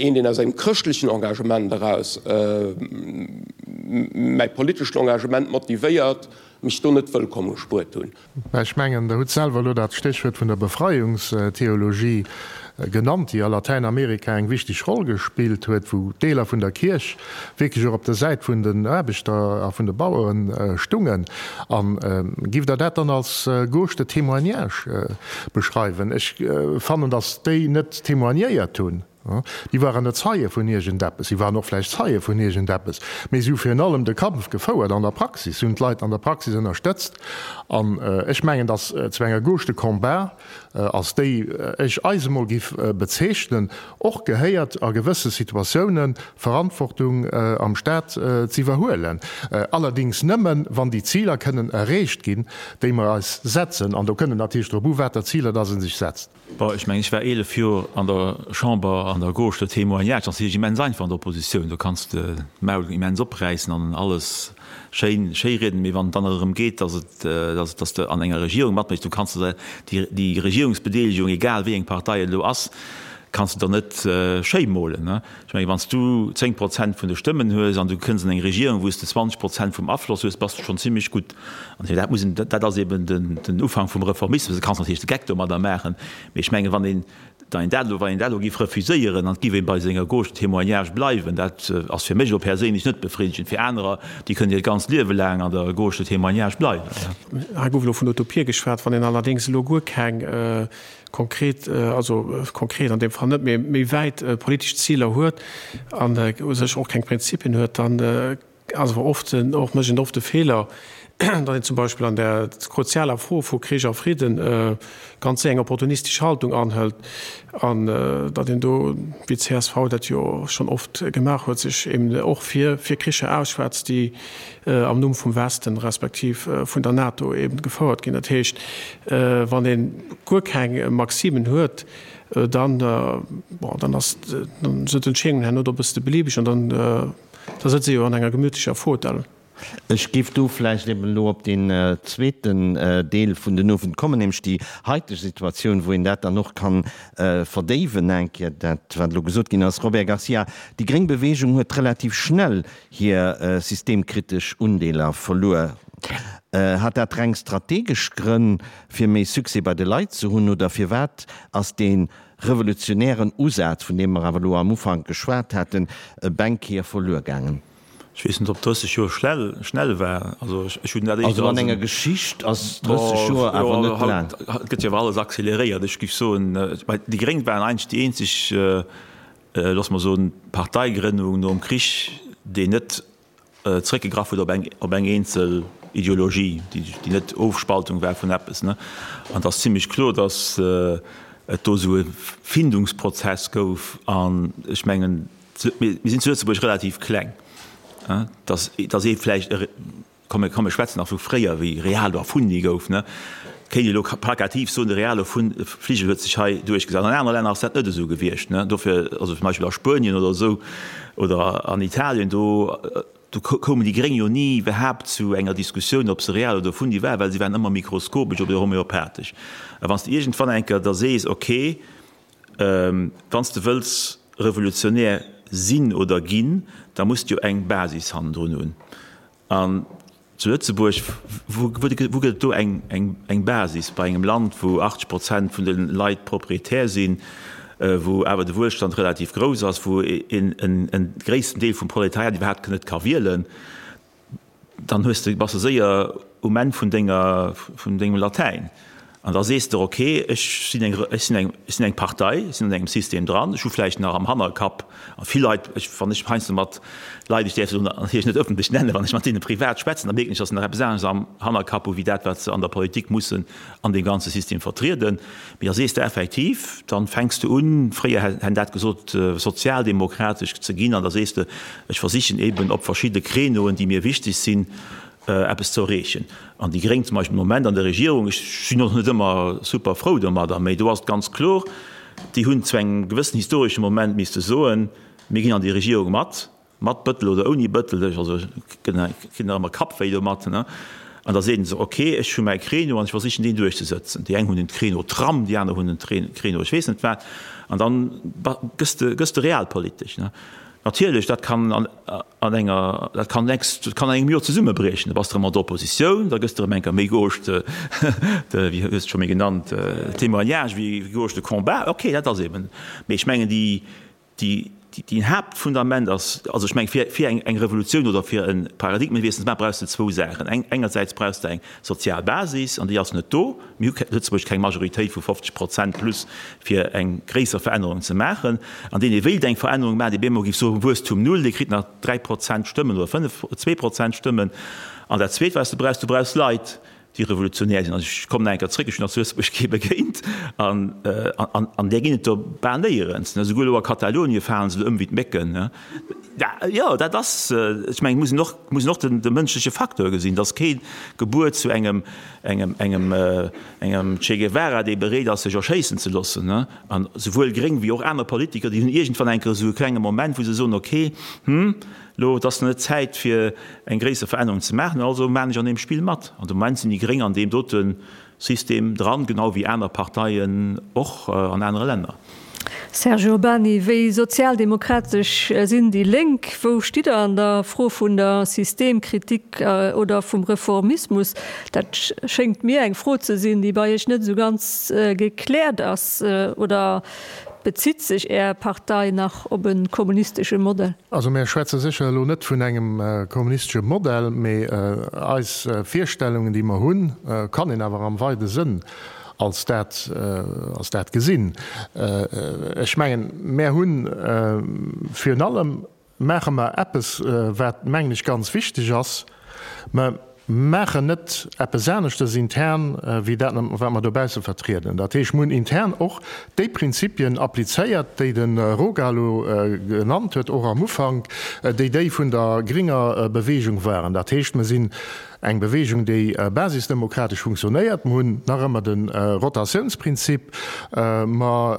een, deen aus engem chrëschtlechen Engagement eraus mäi politeschen Engagement motivéiert, mech do net wëllkomm gespuert hunn. Mä ech mengen, Der hutt selwer elo dat Stéchwuert vun der Befreiungstheologie genannt, déi a Latäinamerika eng wichteg Roll gespillt huet, wou Deeler vun der Kierch wierklech och op der Säit vun den Aarbechter a vun de Bauere stungen. A giff Der dat dann als Gauche de témoignage beschreiwen? Ech fannen, datt déi net témoignéiert hunn. Déi waren net Zeie vun iergendeppes, si waren och vläicht Zeie vun iergendeppes, mee si hu virun allem de Kampf gefouert an der Praxis, si hunn d'Leit an der Praxis ënnerstëtzt. An ech mengen, datt zu enger Gauche de combat, als déi ech eis emol giff bezeechnen, och gehéiert, a gewësse Situatiounen Verantwortung am Staat z'iwwerhuelen. Allerdings nëmmen, wann déi Ziler kënnen erreecht ginn, déi mer eis setzen. An do kënnt et natierlech drop u, water Ziler datt ee sech setzt. Bon, ech mengen, ech war 11 Joer an der Chamber an der Gauche de témoignage, dat ass natierlech immens einfach an der Oppositioun, do kanns de d'Maul immens opräissen an alles schéin schéirieden, mee wann et dann erëm geet, dass et, dass, dass de an enger Regierung matméchs, du kanns de déi, déi Regierungsbedeelegung, egal wéi eng Partei et elo ass, kanns de der net schéi molen. Ech mengen, wann s du 10 Prozent vun de Stëmmen hues an du kënns an eng Regierung, wou s de 20 Prozent vum Afloss hues, bass de schonn zimlech gutt. An dat muss een, dat ass eben den Ufank vum Reformismus. Du kanns natierlech de Geck domadder maachen, mee ech mengen, wann een dann dat elo, wann een dat elo géif refuséieren an et géif ee bei senger Gauche de témoignage bleiwen, dat ass fir mech elo perséinlech net befriddegend. Fir anerer, déi kënnen hiert ganzt Liewe laang an der Gauche de témoignage bleiwen. Hei gouf elo vun Utopie geschwat. Wann een allerdéngs elo guer keng konkret, also konkret an deem Fall net, mee méi wäit politesch Ziler huet an u sech och keng Prinzipien huet, dann ass awer oft och, mécht een oft de Feeler, datt een zum Beispill an där kruzialer Fro vu Krich a Fridden ganz séier eng opportunistesch Haltung anhëlt an datt een do, wéi d'CSV dat jo schonn oft gemaach huet, sech eben och fir Kricher ausschwätzt, déi am Numm vum Westen respektiv vun der NATO eben gefouert ginn. Dat heescht, wann ee guer keng Maximen huet, dann, bon, dann ass, dann sinn d'Entscheedungen herno do e bësse beliebeg an dann, da sëtzt ee jo an enger gemütlecher Fauteuil. Ech géif do vläicht eben elo op deen zweeten Deel vun den Owend kommen, nämlech déi haiteg Situatioun, wou een dat dann och kann verdéiwen eng Kéier, dat wat elo gesot ginn ass. Robert Garcia, déi gréng Bewegung huet relativ schnell hir systemkritesch Undeeler verluer. Hat dat reng strategesch Grënn, fir méi Succès bei de Leit ze hunn, oder firwat ass dee revolutionären Usaz, vun deem mer awer elo am Ufank geschwat haten, bengkéier verluer gaangen? Ech weess net, ob 30 Joer schnell, schnell war. Also ech hunn dat éischter als. Also an enger Geschicht ass 30 Joer awer net laang. Haut gëtt jo awer alles acceleréiert. Ech géif soen, déi Gréng waren eigentlech déi eenzeg, loosse mer soen, Parteigrënnung nom Krich, déi net zréckgegraff huet op eng, op eng eenzel Ideologie, déi, déi net Ofspaltung war vun eppes, ne. An et ass zimlech kloer, datt et do esou e Findungsprozess gouf. An ech mengen, mir sinn zu Lëtzebuerg relativ kleng, datt, datt ee vläicht e, komm mir, komm mir schwätzen nach vu fréier, wéi Realo erfunnt gouf, ne, kéint ee elo plakativ soen, de Realo Fligel huet sech hei duerchgesat. An anere Länner ass dat net esou gewiescht, ne. Dofir, also zum Beispill a Spuenien oder esou oder an Italien, do, do koumen déi Gréng jo ni iwwerhaapt zu enger Diskussioun, ob se real oder erfunnt waren, well se waren ëmmer mikroskopesch oder homeopathesch. A wann s de iergendwann eng Kéier da sees, okay, Wann s de wëlls revolutionär sinn oder ginn, da muss de jo eng Basis hannendrun hunn. An zu Lëtzebuerg, wou gëtt et do eng Basis bei engem Land, wou 80 Prozent vun de Leit Proprietär sinn, wou awer de Wuelstand relativ grouss ass, wou en gréissten Deel vum Proletariat iwwerhaapt net ka wielen? Dann hues de, bass de séier um Enn vun denger, vun dengem Latäin. An da sees de, ok, ech sinn eng, ech sinn eng, ech sinn eng Partei, ech sinn an engem System dran, ech hu vläicht nach am Hannerkapp, a vill Leit, ech, wann ech heiansdo mat Leit, ech däerf se elo natierlech net ëffentlech nennen, wann ech mat deene privat schwätzen, da mierken ech, datt se nach eppes anescht am Hannerkapp hu wéi dat, wat se an der Politik mussen an deem ganze System vertrieden. Mee da sees de effektiv, dann fänks de un, fréier hätt dat gesot, sozialdemokratesch ze ginn, an da sees de, ech versichen eben op verschidde Créneauen, déi mir wichteg sinn, eppes ze erreechen. An déi Gréng zum Beispill de Moment an der Regierung, ech sinn och net ëmmer super frou domadder, mee do ass et ganz kloer, déi hunn zu engem gewëssen historesche Moment misste soen, mir ginn an déi Regierung mat, Mat Bëttel oder ouni Bëttel, ech also kritt nach ëmmer Kappwéi domat, ne? An da seet en sech, ok, ech hu mäi Créneau an ech versichen deen duerchzesëtzen. Déi eng hunn den Créneau Tram, déi aner hunn den Créneau ech weess net wat. An dann gëss de, gëss de realpolitesch, ne? Natierlech, dat kann an, an enger, dat kann nächst, dat kann an engem Joer zesummebriechen. Da bass de erëm an der Oppositioun, da gëss de erëm eng Kéier méi gauche de, de, wéi hues de scho méi genannt, témoignage wéi gauche de combat. Ok, dat ass eben. Mee ech mengen déi, Déi, déi Haaptfundament ass, also ech mengen, fir, fir eng, eng Revolutioun oder fir e Paradigmenwiessel ze maachen, brauchs de zwou Saachen. Eng, engersäits brauchs de eng sozial Basis, an déi ass net do. Mir hu Lëtzebuerg keng Majoritéit vu 50 Prozent plus, fir eng gréisser Verännerung ze maachen. An deen, dee wéilt eng Verännerung maachen, dee bemol géif soen, Wuesstum null, dee kritt nach 3 Prozent Stëmmen oder 5, 2 Prozent Stëmmen. An dat Zweet, wat s de brauchs, du brauchs Leit, déi revolutionär sinn. Also ech kommen nach eng Kéier zréck, ech hunn nach zu Lëtzebuerg kee begéint, an, an, an där ginn et der bal néierens. Esouguer elo a Katalonie falen se elo ëm wéi d'Mécken. Jo, dat ass, ech mengen, et muss een och, muss een och den, de mënschleche Facteur gesinn. Et ass kee gebuer zu engem, engem, engem, engem Che Guevara, dee bereet ass, sech erschéissen ze loossen. An souwuel gréng wéi och aner Politiker, déi hunn iergendwann eng Kéier esou e klenge Moment, wou se soen, okay, hm, Lo, et ass nach net Zäit fir eng gréisser Verännerung ze maachen, also maan ech an deem Spill mat. An de Moment sinn déi Gréng an deem dote System dran, genau wéi aner Parteien och an anere Länner. Serge Urbany, Wéi sozialdemokratesch sinn déi Lénk? Wou stitt Der an der Fro vun der Systemkritik oder vum Reformismus? Dat schéngt mir eng Fro ze sinn, déi bei Iech net esou ganz gekläert ass. Oder Bezitt sech Är Partei nach op e kommunistesche Modell? Also mär schwätze sécher elo net vun engem kommunistesche Modell, mee eis Virstellungen, déi mer hunn, kann een awer am weide Sënn als dat, als dat gesinn. Ech mengen, mär hunn virun allem Maache mer eppes, wat, mengen ech, ganz wichteg ass, Mer maachen net eppes aneschtes intern wéi dat, wat mer dobausse vertrieden. Dat heescht, mer hunn intern och déi Prinzipien applizéiert, déi de Roga elo genannt huet, och am Ufank, déi déi vun der gringer Bewegung waren. Dat heescht, mer sinn eng Bewegung, déi basisdemokratesch funktionéiert. Mer hunn nach ëmmer de Rotatiounsprinzip. Mer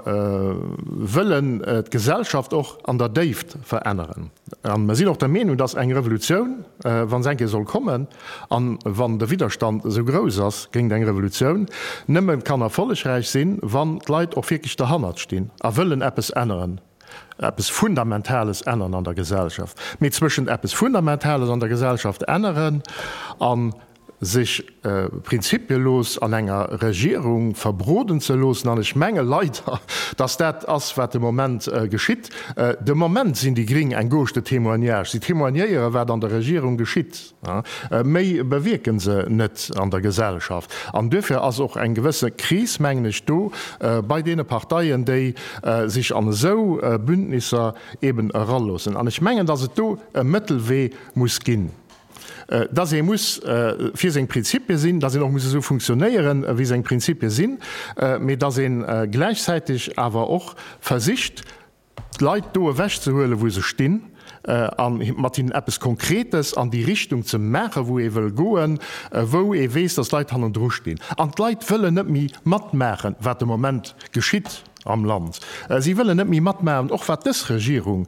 wëllen d'Gesellschaft och an der Déift veränneren. A mer sinn och der Meenung, dass eng Revolutioun, wa se eng Kéier soll kommen, a wann de Widderstand esou grouss ass géint eng Revolutioun, nëmme kann erfollegräich sinn, wann d'Leit och wierklech derhannert stinn a wëllen eppes änneren, eppes Fundamentales änneren an der Gesellschaft. Mee zwëschent eppes Fundamentales an der Gesellschaft änneren a sech prinzipielos an enger Regierung verbroden ze loossen, an ech menge leider, dass dat ass, wat de Moment geschitt. De Moment sinn déi Gring eng Gauche de témoignage. Si témoignéiere wat an der Regierung geschitt. Méi bewierke se net an der Gesellschaft. An duerfir ass och eng gewësse Kris, mengen ech, do bei deene Parteien, déi sech an esou Bündnisser eben eraloossen. An ech mengen, dass et do e Mëttelwee muss ginn. Dass ee muss fir seng Prinzipie sinn, dass een och muss esou funktionéieren, wéi seng Prinzipie sinn, mee dass ee gläichzäiteg awer och versicht, d'Leit do ewechzehuelen, wou se stinn, a mat hinnen eppes Konkretes an déi Richtung ze maachen, wou ee wëll goen, wou ee weess, dass d'Leit hannendru stinn. An d'Leit wëllen net méi matmaachen, wat de Moment geschitt am Land. Si wëllen net méi matmaachen, och wat dës Regierung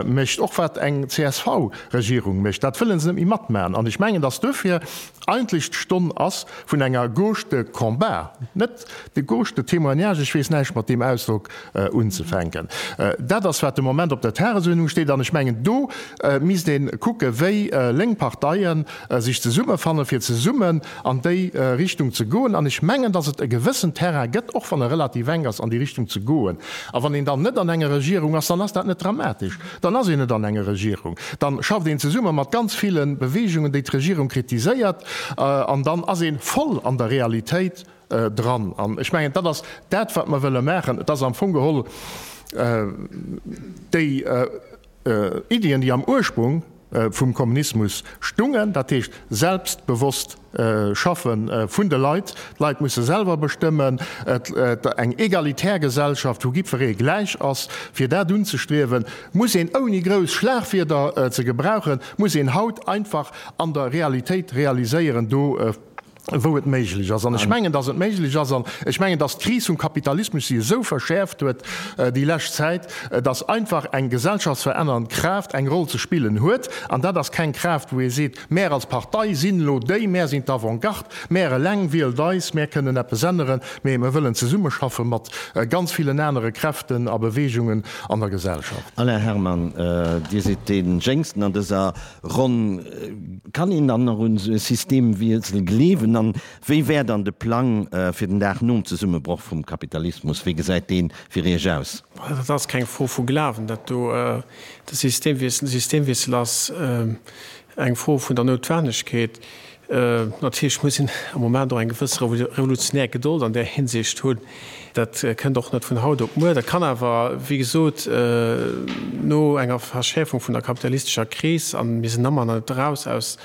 mécht, och wat eng CSV-Regierung mécht, dat wëlle se net méi matmaachen. An ech mengen, dass duerfir eigentlech d'Stonn ass vun enger Gauche de combat, net de Gauche de témoignage, ech weess näischt mat deem Ausdrock unzefänken. Dat ass, wat de Moment op der Tagesuerdnung steet. An ech mengen, do misst ee kucke wéi lénk Parteie sech zesummefannen, fir zesummen an déi Richtung ze goen. An ech mengen, dass et e gewëssen Terrain gëtt, och wann e relativ enk ass, an déi Richtung ze goen. A wann een dann net an enger Regierung ass, dann ass dat net dramatesch. Dann ass een net an enger Regierung. Dann schafft een zesumme mat ganz ville Beweegungen, déi d'Regierung kritiséiert, an dann ass ee voll an der Realitéit dran. An ech mengen, dat ass dat, wat mer wëlle maachen. Et ass am Fong geholl déi Iddien, déi am Ursprung vum Kommunismus stungen, dat heescht selbstbewosst Schaffe vun de Leit, d'Leit musse selwer bestëmmen, eng egalitär Gesellschaft, wou jiddweree gläich ass, fir dat unzestriewen, muss een, ouni grouss Schlagwierder ze gebrauchen, muss een haut einfach an der Realitéit realiséieren, do wou et méiglech ass. An ech mengen, datt et méiglech ass, an ech mengen, datt d'Kris vum Kapitalismus si esou verschäerft huet déi lescht Zäit, datt einfach eng gesellschaftsverännernd Kraaft eng Roll ze spillen huet. An dat ass keng Kraaft, wou ee seet, mär als Partei sinn elo déi, mär sinn d'Avant-garde, mär eleng, wielt eis, mär kënnen eppes änneren, mee mer wëllen zesummeschaffe mat ganz villen anere Kräften a Beweegungen an der Gesellschaft. Alain Herman, Dir sidd dee Jéngsten an dëser Ronn, kann een dann nach un esou e Systemwiessel gleewen? An wéi wär dann de Plang fir den Dag nom Zesummebroch vum Kapitalismus? Wéi gesäit dee fir Iech aus? Dat ass keng Fro vu Glawen, dat do. De Systemwiessel, de Systemwiessel ass eng Fro vun der Noutwennegkeet. Natierlech muss een am Moment och eng gewëss revolutionär Gedold an där Hinsicht hunn. Dat kënnt och net vun haut op muer. Dat kann awer, wéi gesot, no enger Verschäerfung vun der kapitalistescher Kris, a mir sinn ëmmer nach net eraus aus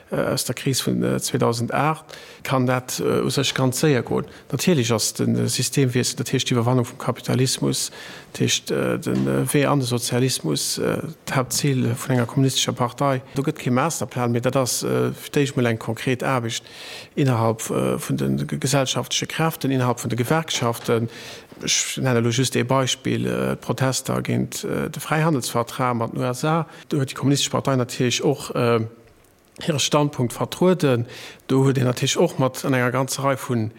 der Kris vun 2008, kann dat u sech ganz séier goen. Natierlech ass de Systemwiessel, dat heescht d'Iwwerwannung vum Kapitalismus, dat heescht de Wee an de Sozialismus, d'Haaptzil vun enger kommunistescher Partei. Do gëtt kee Masterplan, mee dat ass fir d'éischt mol eng konkret Aarbecht innerhalb vun de gesellschaftleche Kräften, innerhalb vun de Gewerkschaften. Ech nennen elo just ee Beispill, d'Protester géint de Fräihandelsvertrag mat den USA. Do huet déi Kommunistesch Partei natierlech och hire Standpunkt vertrueden. Do huet een natierlech och mat an enger ganzer Rei vu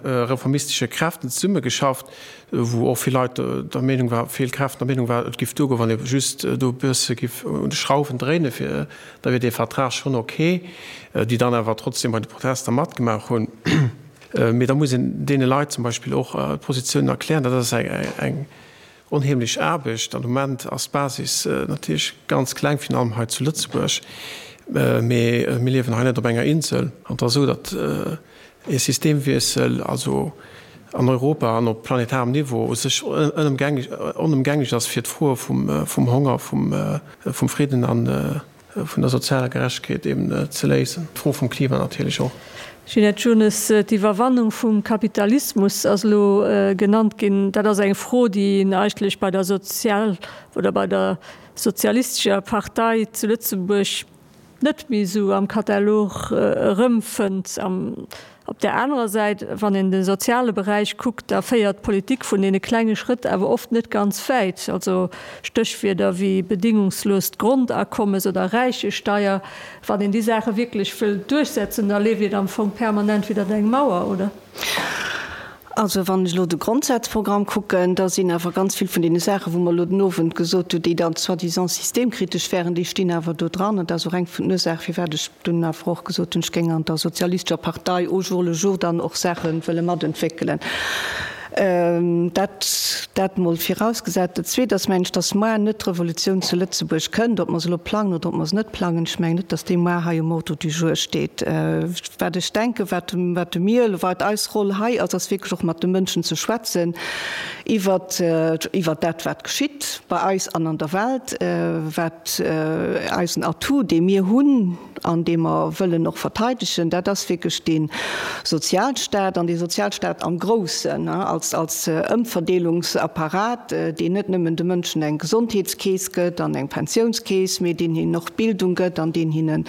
reformistesche Kräften zesummegeschafft, wou och vill Leit der Meenung war, vill Kräften der Meenung waren, et giff duergoen, wann ee just do e bësse giff un de Schrauwen dréinen, fir da wier dee Vertrag schonn ok, déi dann awer trotzdem bei de Protester matgemaach hunn. Mee da muss een deene Leit zum Beispill och d'Positiounen erklären. Dat ass eng Onheemlech Aarbecht. An de Moment ass d'Basis natierlech ganz kleng, virun allem hei zu Lëtzebuerg. Mee mir liewen hei net op enger Insel. An et ass esou, datt ee Systemwiessel, also an Europa an op planetarem Niveau, u sech onëmgänglech ass, fir d'Froe vum Honger, vum Fridden an vun der sozialer Gerechtegkeet eben ze léisen. D'Fro vum Klima natierlech och. Ginette Jones, D'Iwwerwannung vum Kapitalismus ass elo genannt ginn. Dat ass eng Fro, déi een eigentlech bei der Sozial oder bei der Sozialistescher Partei zu Lëtzebuerg net méi esou am Katalog erëmfënnt. Op där anerer Säit, wann een de soziale Beräich kuckt, da féiert d'Politik vun deene klenge Schrëtt awer oft net ganz wäit. Also Stéchwierder wéi bedingungsloost Grondakommes oder Räichesteier, wann een déi Saache wierklech wëll duerchsetzen, da leeft een am Fong permanent widder eng Mauer, oder? Also wann ech elo de Grondsazprogramm kucken, da sinn awer ganz vill vun deene Saachen, wou mer elo den Owend gesot hunn, déi dann soi-disant systemkritesch wären, déi stinn awer do dran. An dat ass och eng vun den Ursaachen, firwat ech dunn awer och gesot hunn, ech géing an der Sozialistescher Partei au jour le jour dann och Saache wëlle matentwéckelen. Dat, dat mol virausgesat. Dat Zweet ass, mengen ech, dass moar net d'Revolutioun zu Lëtzebuerg kënnt, ob mer se elo plangen oder ob mer se net plangen. Ech mengen net, dass déi moar hei um Ordre du jour steet. Wat ech denken, wat wat de mir, wat eis Roll hei ass, ass wierklech och mat de Mënschen ze schwätzen iwwert iwwert dat, wat geschitt bei eis an an der Welt, wat eisen Atout, dee mir hunn an dee mer wëllen och verteidegen, dat ass wierklech dee Sozialstaat an dee Sozialstaat am Groussen als als Ëmverdeelungsapparat, deen net nëmmen de Mënschen eng Gesondheetskeess gëtt an eng Pensiounskeess, mee deen hinnen och Bildung gëtt an deen hinnen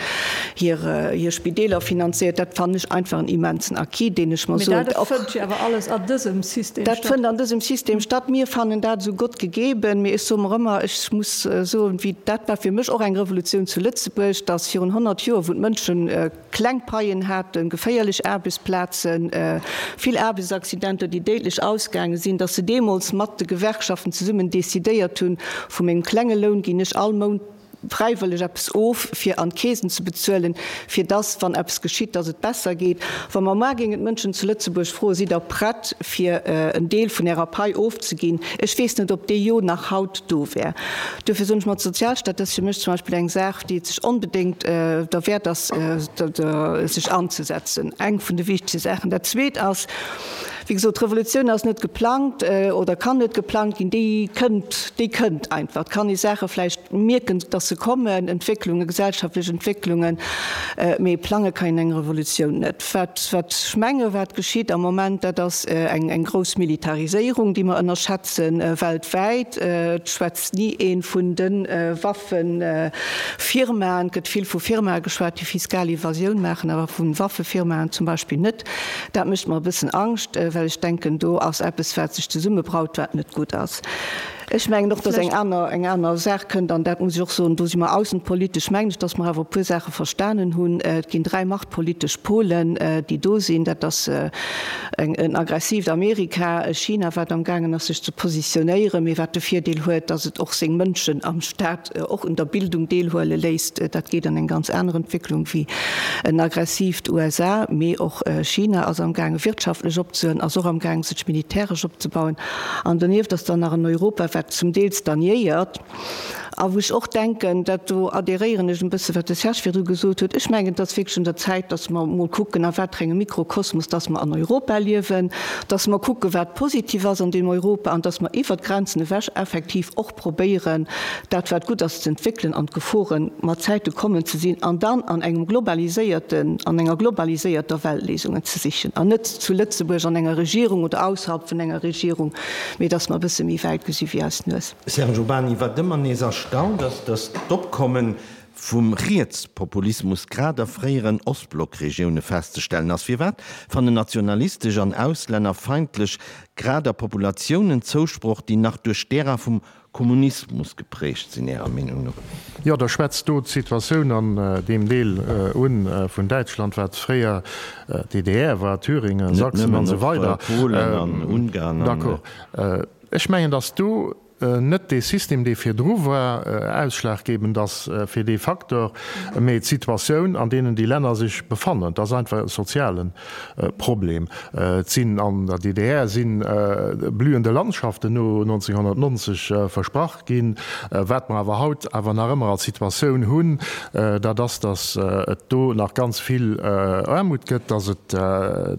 hir hir Spideeler finanziert, dat fannen ech einfach en immensen Acquis, deen ech mer Mee soen, dat och fënnt jo awer alles an dësem System dat statt. fënnt an dësem System statt. Mir fannen dat esou Gott gegeben, mee ech soe mer ëmmer, ech muss soen, wéi dat war fir mech och eng Revolutioun zu Lëtzebuerg, datt virun 100 Joer, wou d'Mënschen kleng Paien haten, geféierlech Aarbechtsplazen, vill Aarbechtsaccidenter, déi déidlech ausgaange sinn, datt se deemools mat de Gewerkschaften zesummen decidéiert hunn, vu mengem klenge Loun ginn ech all Mount fräiwëlleg eppes of, fir an d'Keesen ze bezuelen, fir dass, wann eppes geschitt, dass et besser geet. Wa mer mar géingen d'Mënschen zu Lëtzebuerg froen, Sidd Der prett, fir en Deel vun Ärer Pai ofzeginn? Ech weess net, ob dee Jo nach haut do wär. Duerfir soen ech mer, d'Sozialstaat, dat ass fir mech zum Beispill eng Saach, déi et sech onbedéngt derwäert ass, sech anzesetzen. Eng vun de wichtegste Saachen. Dat Zweet ass, Wéi gesot, d'Revolutioun ass net geplangt oder kann net geplangt ginn, déi kënnt, déi kënnt einfach. Et kann ee Saache vläicht mierken, dass se kommen, Entwécklungen, gesellschaftlech Entwécklungen, mee plange kann een eng Revolutioun net. Wat, wat ech menge wat geschitt am Moment, dat ass eng, eng grouss Militariséierung, déi mer ënnerschätzen, weltwäit. Et schwätzt ni ee vun de Waffefirmaen. Et gëtt vill vu Firmae geschwat, déi fiskal Evasioun maachen, awer vu Waffefirmaen zum Beispill net. Dat mécht mer e bëssen Angscht, well ech denken, do ass eppes, wat sech zesummebraut, wat net gutt ass. Ech mengen och, dass eng aner, eng aner Saach kënnt, an dat muss ech och soen, do si mer aussenpolitesch, mengen ech, dass mer awer e puer Saache verstanen hunn. Et ginn dräi machtpolitesch Polen, déi do sinn. Dat ass eng, en aggressiivt Amerika, e China, wat amgaangen ass, sech ze positionéieren, mee wat de Virdeel huet, dass et och seng Mënschen am Stat och un der Bildung deelhuele léisst. Dat geet an eng ganz aner Entwécklung wéi en aggressiivt USA. Mee och China ass amgaange wirtschaftlech opzehuelen, ass och amgaange sech militäresch opzebauen. An donieft ass dann nach en Europa, wat zum Deel stagnéiert a wou ech och denken, dat do adhéréieren ech en bësse wat de Serge virdru gesot huet, ech mengen et ass wierklech un der Zäit, datt mer emol kucken a wat fir engem Mikrokosmos datt mer an Europa liewen, datt mer kucken, wat positiv ass an deem Europa an datt mer iwwert d'Grenzen ewech effektiv och probéieren, dat wat gutt ass ze entwéckelen an d'Geforen mat Zäite kommen ze sinn an dann an engem globaliséierten, an enger globaliséierter Welt Léisungen ze sichen an net zu Lëtzebuerg an enger Regierung oder ausserhalb vun enger Regierung, mee dass mer e bësse méi wäit gesi wéi eis Nues. Serge Urbany, Wat ëmmer nees erstaunt ass, dass d'Opkomme vum Rietspopulismus grad a fréieren Ostblockregioune festzestellen ass. Firwat fannen nationalistesch an auslännerfeindlech grad a Populatiounen Zousproch, déi nach duerch d'Ära vum Kommunismus geprägt sinn, Ärer Meenung no? Jo, Der schwätzt do d'Situatioun an deem Deel un vun Däitschland, wat fréier DDR war, Thüringen, Sachsen an esou weider. Polen an Ungarn an. D'accord. Ech mengen, datt do net dee System, dee virdru war, ausschlaggebend ass fir dee Facteur, mee d'Situatioun, an deenen déi Länner sech befannen. Et ass einfach e soziale Problem. Et sinn an der DDR si blühende Landschaften no 1990 versprach ginn. Wat mer awer haut awer nach ëmmer als Situatioun hunn, dat ass, datt et do nach ganz vill Aarmut gëtt, datt et,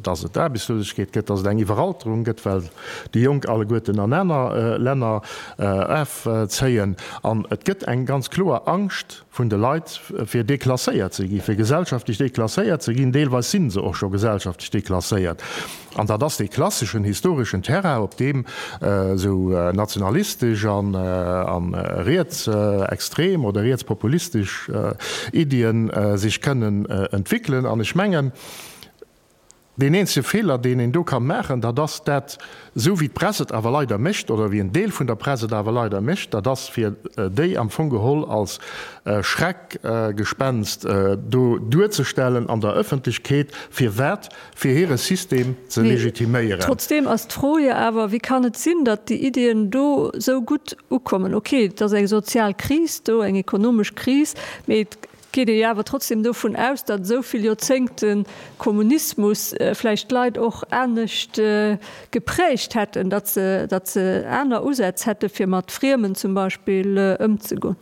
datt et Aarbechtslosegkeet gëtt, datt et eng Iwweralterung gëtt, well déi Jonk alleguerten an aner Länner erfzéien. An et gëtt eng ganz kloer Angscht vun de Leit, fir deklasséiert ze ginn, fir gesellschaftlech deklasséiert ze ginn. Deelweis si se och scho gesellschaftlech deklasséiert. An dat ass dee klasseschen historeschen Terrain, op deem esou nationalistesch a rietsextrem oder rietspopulistesch Iddien sech kënnen entwéckelen. An ech mengen. Deen eenzege Feeler, deen een do ka maachen, dat ass dat, esou wéi d'Press et awer leider mécht, oder wéi en Deel vun der Press et awer leider mécht, dat ass fir déi am Fong geholl als Schreckgespenst do duerzestellen an der Ëffentlechkeet. Firwat? Fir hire System ze legitiméieren. Trotzdeem ass d'Fro jo awer, Wéi kann et sinn, datt déi Iddien do esou gutt ukommen? Okay, et ass eng sozial Kris do, eng ekonomesch Kris, mee et geet ee jo awer trotzdem dovun aus, datt esou vill Joerzéngte Kommunismus vläicht d'Leit och anescht geprägt hätten, datt se, datt se aner Usätz hätte fir mat Friemen zum Beispill ëmzegoen.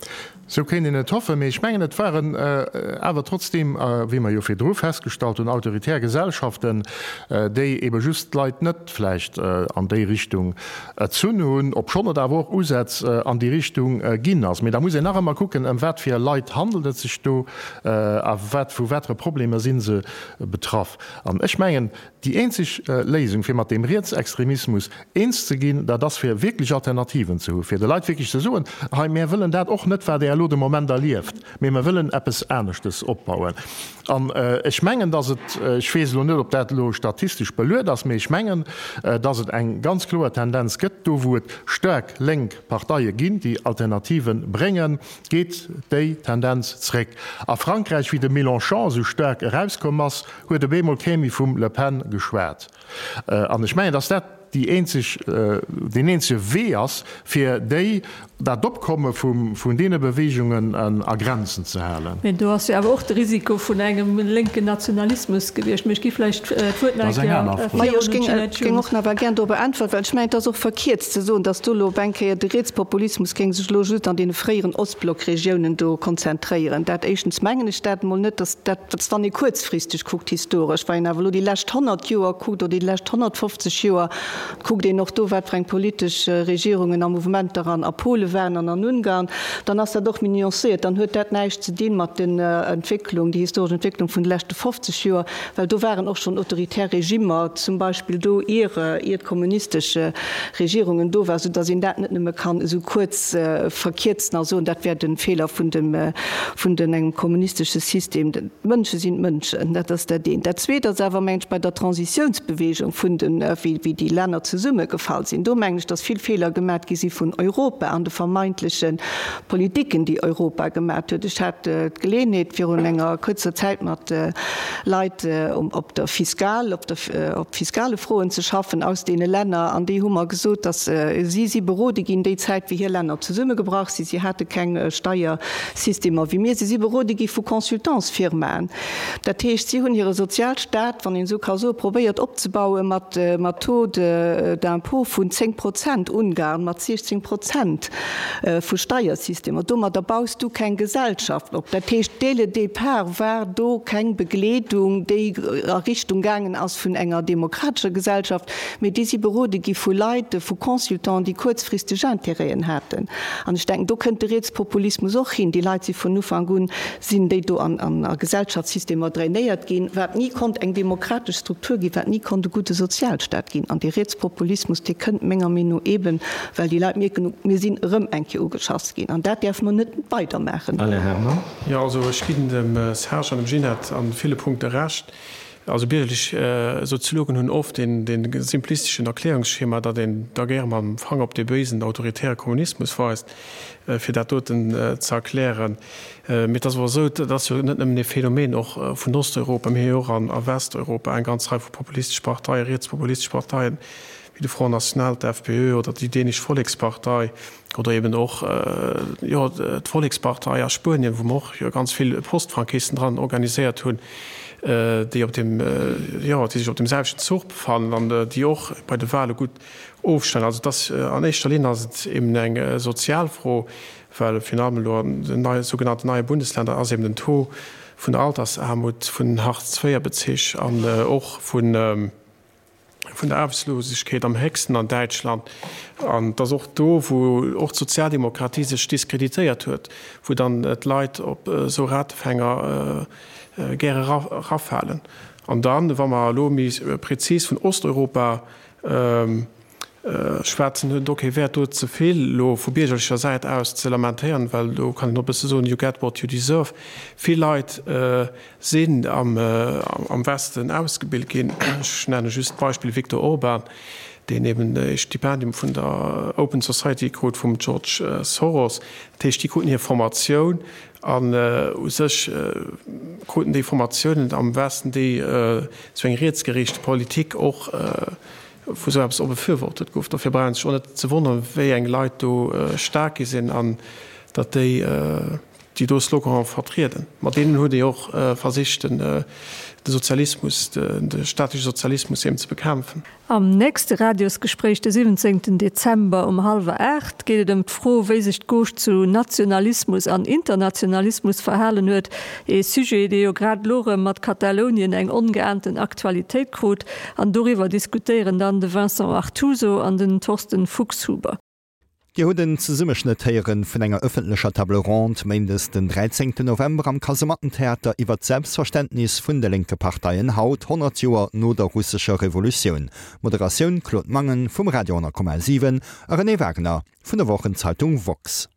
Sou kéint een et hoffen, mee ech mengen, et waren awer trotzdeem, wéi mer jo virdru festgestallt hunn, autoritär Gesellschaften, déi ebe just d'Leit net vläicht an déi Richtung erzunn hunn, obschonn et awer och Usätz an déi Richtung ginn ass. Mee da muss een nach ëmmer kucken, ëm wat fir Leit handelt et sech do a wat, vu watere Problemer si se betraff. An ech mengen, Déi eenzeg Léisung, fir mat deem Rietsextremismus eens ze ginn, dat ass, fir wierklech Alternativen ze hu fir de Leit wierklech ze soen, Hei, mär wëllen dat och net, wat Der elo de Moment erlieft, mee mer wëllen eppes aneschtes opbauen. An ech mengen, dass et, ech weess elo net, ob dat elo statistesch beluet ass, mee ech mengen, dass et eng ganz kloer Tendenz gëtt, do wou et staark lénk Parteie ginn, déi Alternative bréngen, geet déi Tendenz zréck. A Frankräich, wéi de Mélenchon esou staark erauskomm ass, huet op eemol kee méi vum Le Pen geschwat. An ech mengen, datt dat déi eenzeg, deen eenzege Wee ass, fir déi, dat Opkomme vun deene Beweegungen a Grenzen ze halen. Mee do ass jo awer och de Risiko vun engem lénken Nationalismus gewiescht. Mee ech gi vläicht d'Wuert nach eng Kéier virun un d'Ginette Ech géing och nach gär dorobber äntweren, well ech mengen, et ass och verkierzt ze soen, datt do elo op eng Kéier de Rietspopulismus géing sech elo just an deene fréieren Ostblockregiounen do konzentréieren. Dat éischtens mengen ech dat emol net, datt dat, wann ee kuerzfristeg kuckt historesch, wa een awer elo déi lescht 100 Joer kuckt oder déi lescht 150 Joer, kuckt een och do, wat fir eng politesch Regierungen a Mouvementer an a Pole waren an an Ungarn, dann ass dat och méi nuancéiert. Dann huet dat näischt ze dinn mat den Entwécklung, déi historesch Entwécklung vun de leschte 50 Joer, well do waren och schonn autoritär Regimmer zum Beispill do, ier ier d'kommunistesch Regierungen do waren, soudass een dat net nëmme kann esou kuerz verkierzen a soen, dat wär de Feeler vun dem vun den engem kommunistesche System. D'Mënsche sinn d'Mënschen, dat ass dat eent. Dat zweet ass awer, mengen ech, bei der Transitiounsbewegung vun den, wéi wéi déi Länner zesummegefall sinn, do mengen ech, datt vill Feeler gemat gi si vun Europa an de vermeintleche Politiken, déi Europa gemat huet. Ech hat d'Geleeënheet virun enger kuerzer Zäit mat Leit op der Fiskal, op der, op fiskale Froen ze schaffen aus deene Länner an déi hu mer gesot, datt si si berode ginn déi Zäit wéi hir Länner zesummegebrach sinn, si hate keng Steiersystemer wéi mir, si si berode gi vu Consultantsfirmaen. Dat heescht, si hunn hire Sozialstaat, wann een esou ka soen, probéiert opzebaue mat mat Taux d'impôt vun 10 Prozent, Ungarn mat 16 Prozent vu Steiersystemer. Domadder baus du keng Gesellschaft op. Dat heescht, dès le départ war do keng Begleedung, déi a Richtung gaangen ass vun enger demokratescher Gesellschaft, mee déi si berode gi vu Leit, vu Consultants, déi kuerzfristeg Intérêten haten. An ech denken, do kënnt de Rietspopulismus och hin. Déi Leit si vun Ufank un, sinn déi do an a Gesellschaftssystemer drainéiert ginn, wat ni konnt eng demokratesch Struktur ginn, wat ni konnt e gudde Sozialstaat ginn. An dee Rietspopulismus, dee kënnt menger Meenung no eeben, well déi Leit mierken, mir sinn erëm eng Kéier ugeschass ginn an dat däerfe mer net weider maachen. Alain Herman. Jo, also ech ginn dem Serge an dem Ginette an ville Punkte Recht. Also biergerlech Soziologen hunn oft dee simplisteschen Erklärungsschema, datt een da gäre mam Fanger op dee béisen autoritäre Kommunismus weist, fir dat doten ze erklären. Mee et ass awer esou, dat ass jo net nëmmen ee Phänomen och vun Osteuropa, mir hu jo och a Westeuropa eng ganz Rei vu populistesch Parteien, rietspopulistesch Parteien, wéi de Front National, d'FPÖ oder déi dänesch Vollekspartei oder eben och, jo, d'Vollekspartei a Spuenien, wou mer och jo ganz vill Postfranquisten dran organiséiert hunn, déi op deem, jo, déi sech op deem selwechten Zuch befannen an déi och bei de Wahle gutt ofschneiden. Also et ass an éischter Linn ass et eben eng sozial Fro, well virun allem elo an den neie sougenannten neie Bundesländer ass eben den Taux vun der Altersaarmut, vun den Hartz-IV-Bezich an och vun, vun der Aarbechtslosegkeet am héchsten an Däitschland. An et ass och do, wou och d'Sozialdemokratie sech diskreditéiert huet, wou dann d'Leit op esou Ratefänger gäre erafalen. An dann, wa mer elo méi prezis vun Osteuropa. Schwätzen huet et och kee Wäert do ze vill elo vu biergerlecher Säit aus ze lamentéieren, well do kann een och e bësse soen, you get what you deserve. Vill Leit sinn am Westen ausgebilt ginn. Ech nenne just d'Beispill Viktor Orban, deen eben e Stipendium vun der Open Society krut vum George Soros. Dat heescht, déi kruten hir Formatioun an u sech kruten déi Formatiounen am Westen, déi esou eng rietsgeriichte Politik och wou esou eppes och befürwortet gouf. Dofir brauch een sech och net ze wonneren, wéi eng Leit do staark gi sinn an datt déi déi do Slogane vertrieden. Mat deenen huet ee och versicht, de Sozialismus, de staatleche Sozialismus eben ze bekämpfen. Am nächste Radiosgespréich de 17 Dezember um hallwer 8 geet et ëm d'Fro, wéi sech d'Gauche zu Nationalismus an Internationalismus verhalen huet. Ee Sujet, dee jo grad elo erëm mat Katalounien eng ongeahnten Aktualitéit krut. An doriwwer diskutéieren dann de Vincent Artuso an den Thorsten Fuchshuber. Dir hutt en Zesummeschnëtt héieren vun enger ëffentlecher Table ronde méindes den 13 November am Kasemattentheater iwwert d'Selbstverständnis vun de lénke Parteien haut, 100 Joer no der russescher Revolutioun. Moderatioun, Claude Mangen vum Radio 10,7 a Renée Wagner vun der Wochenzeitung woxx.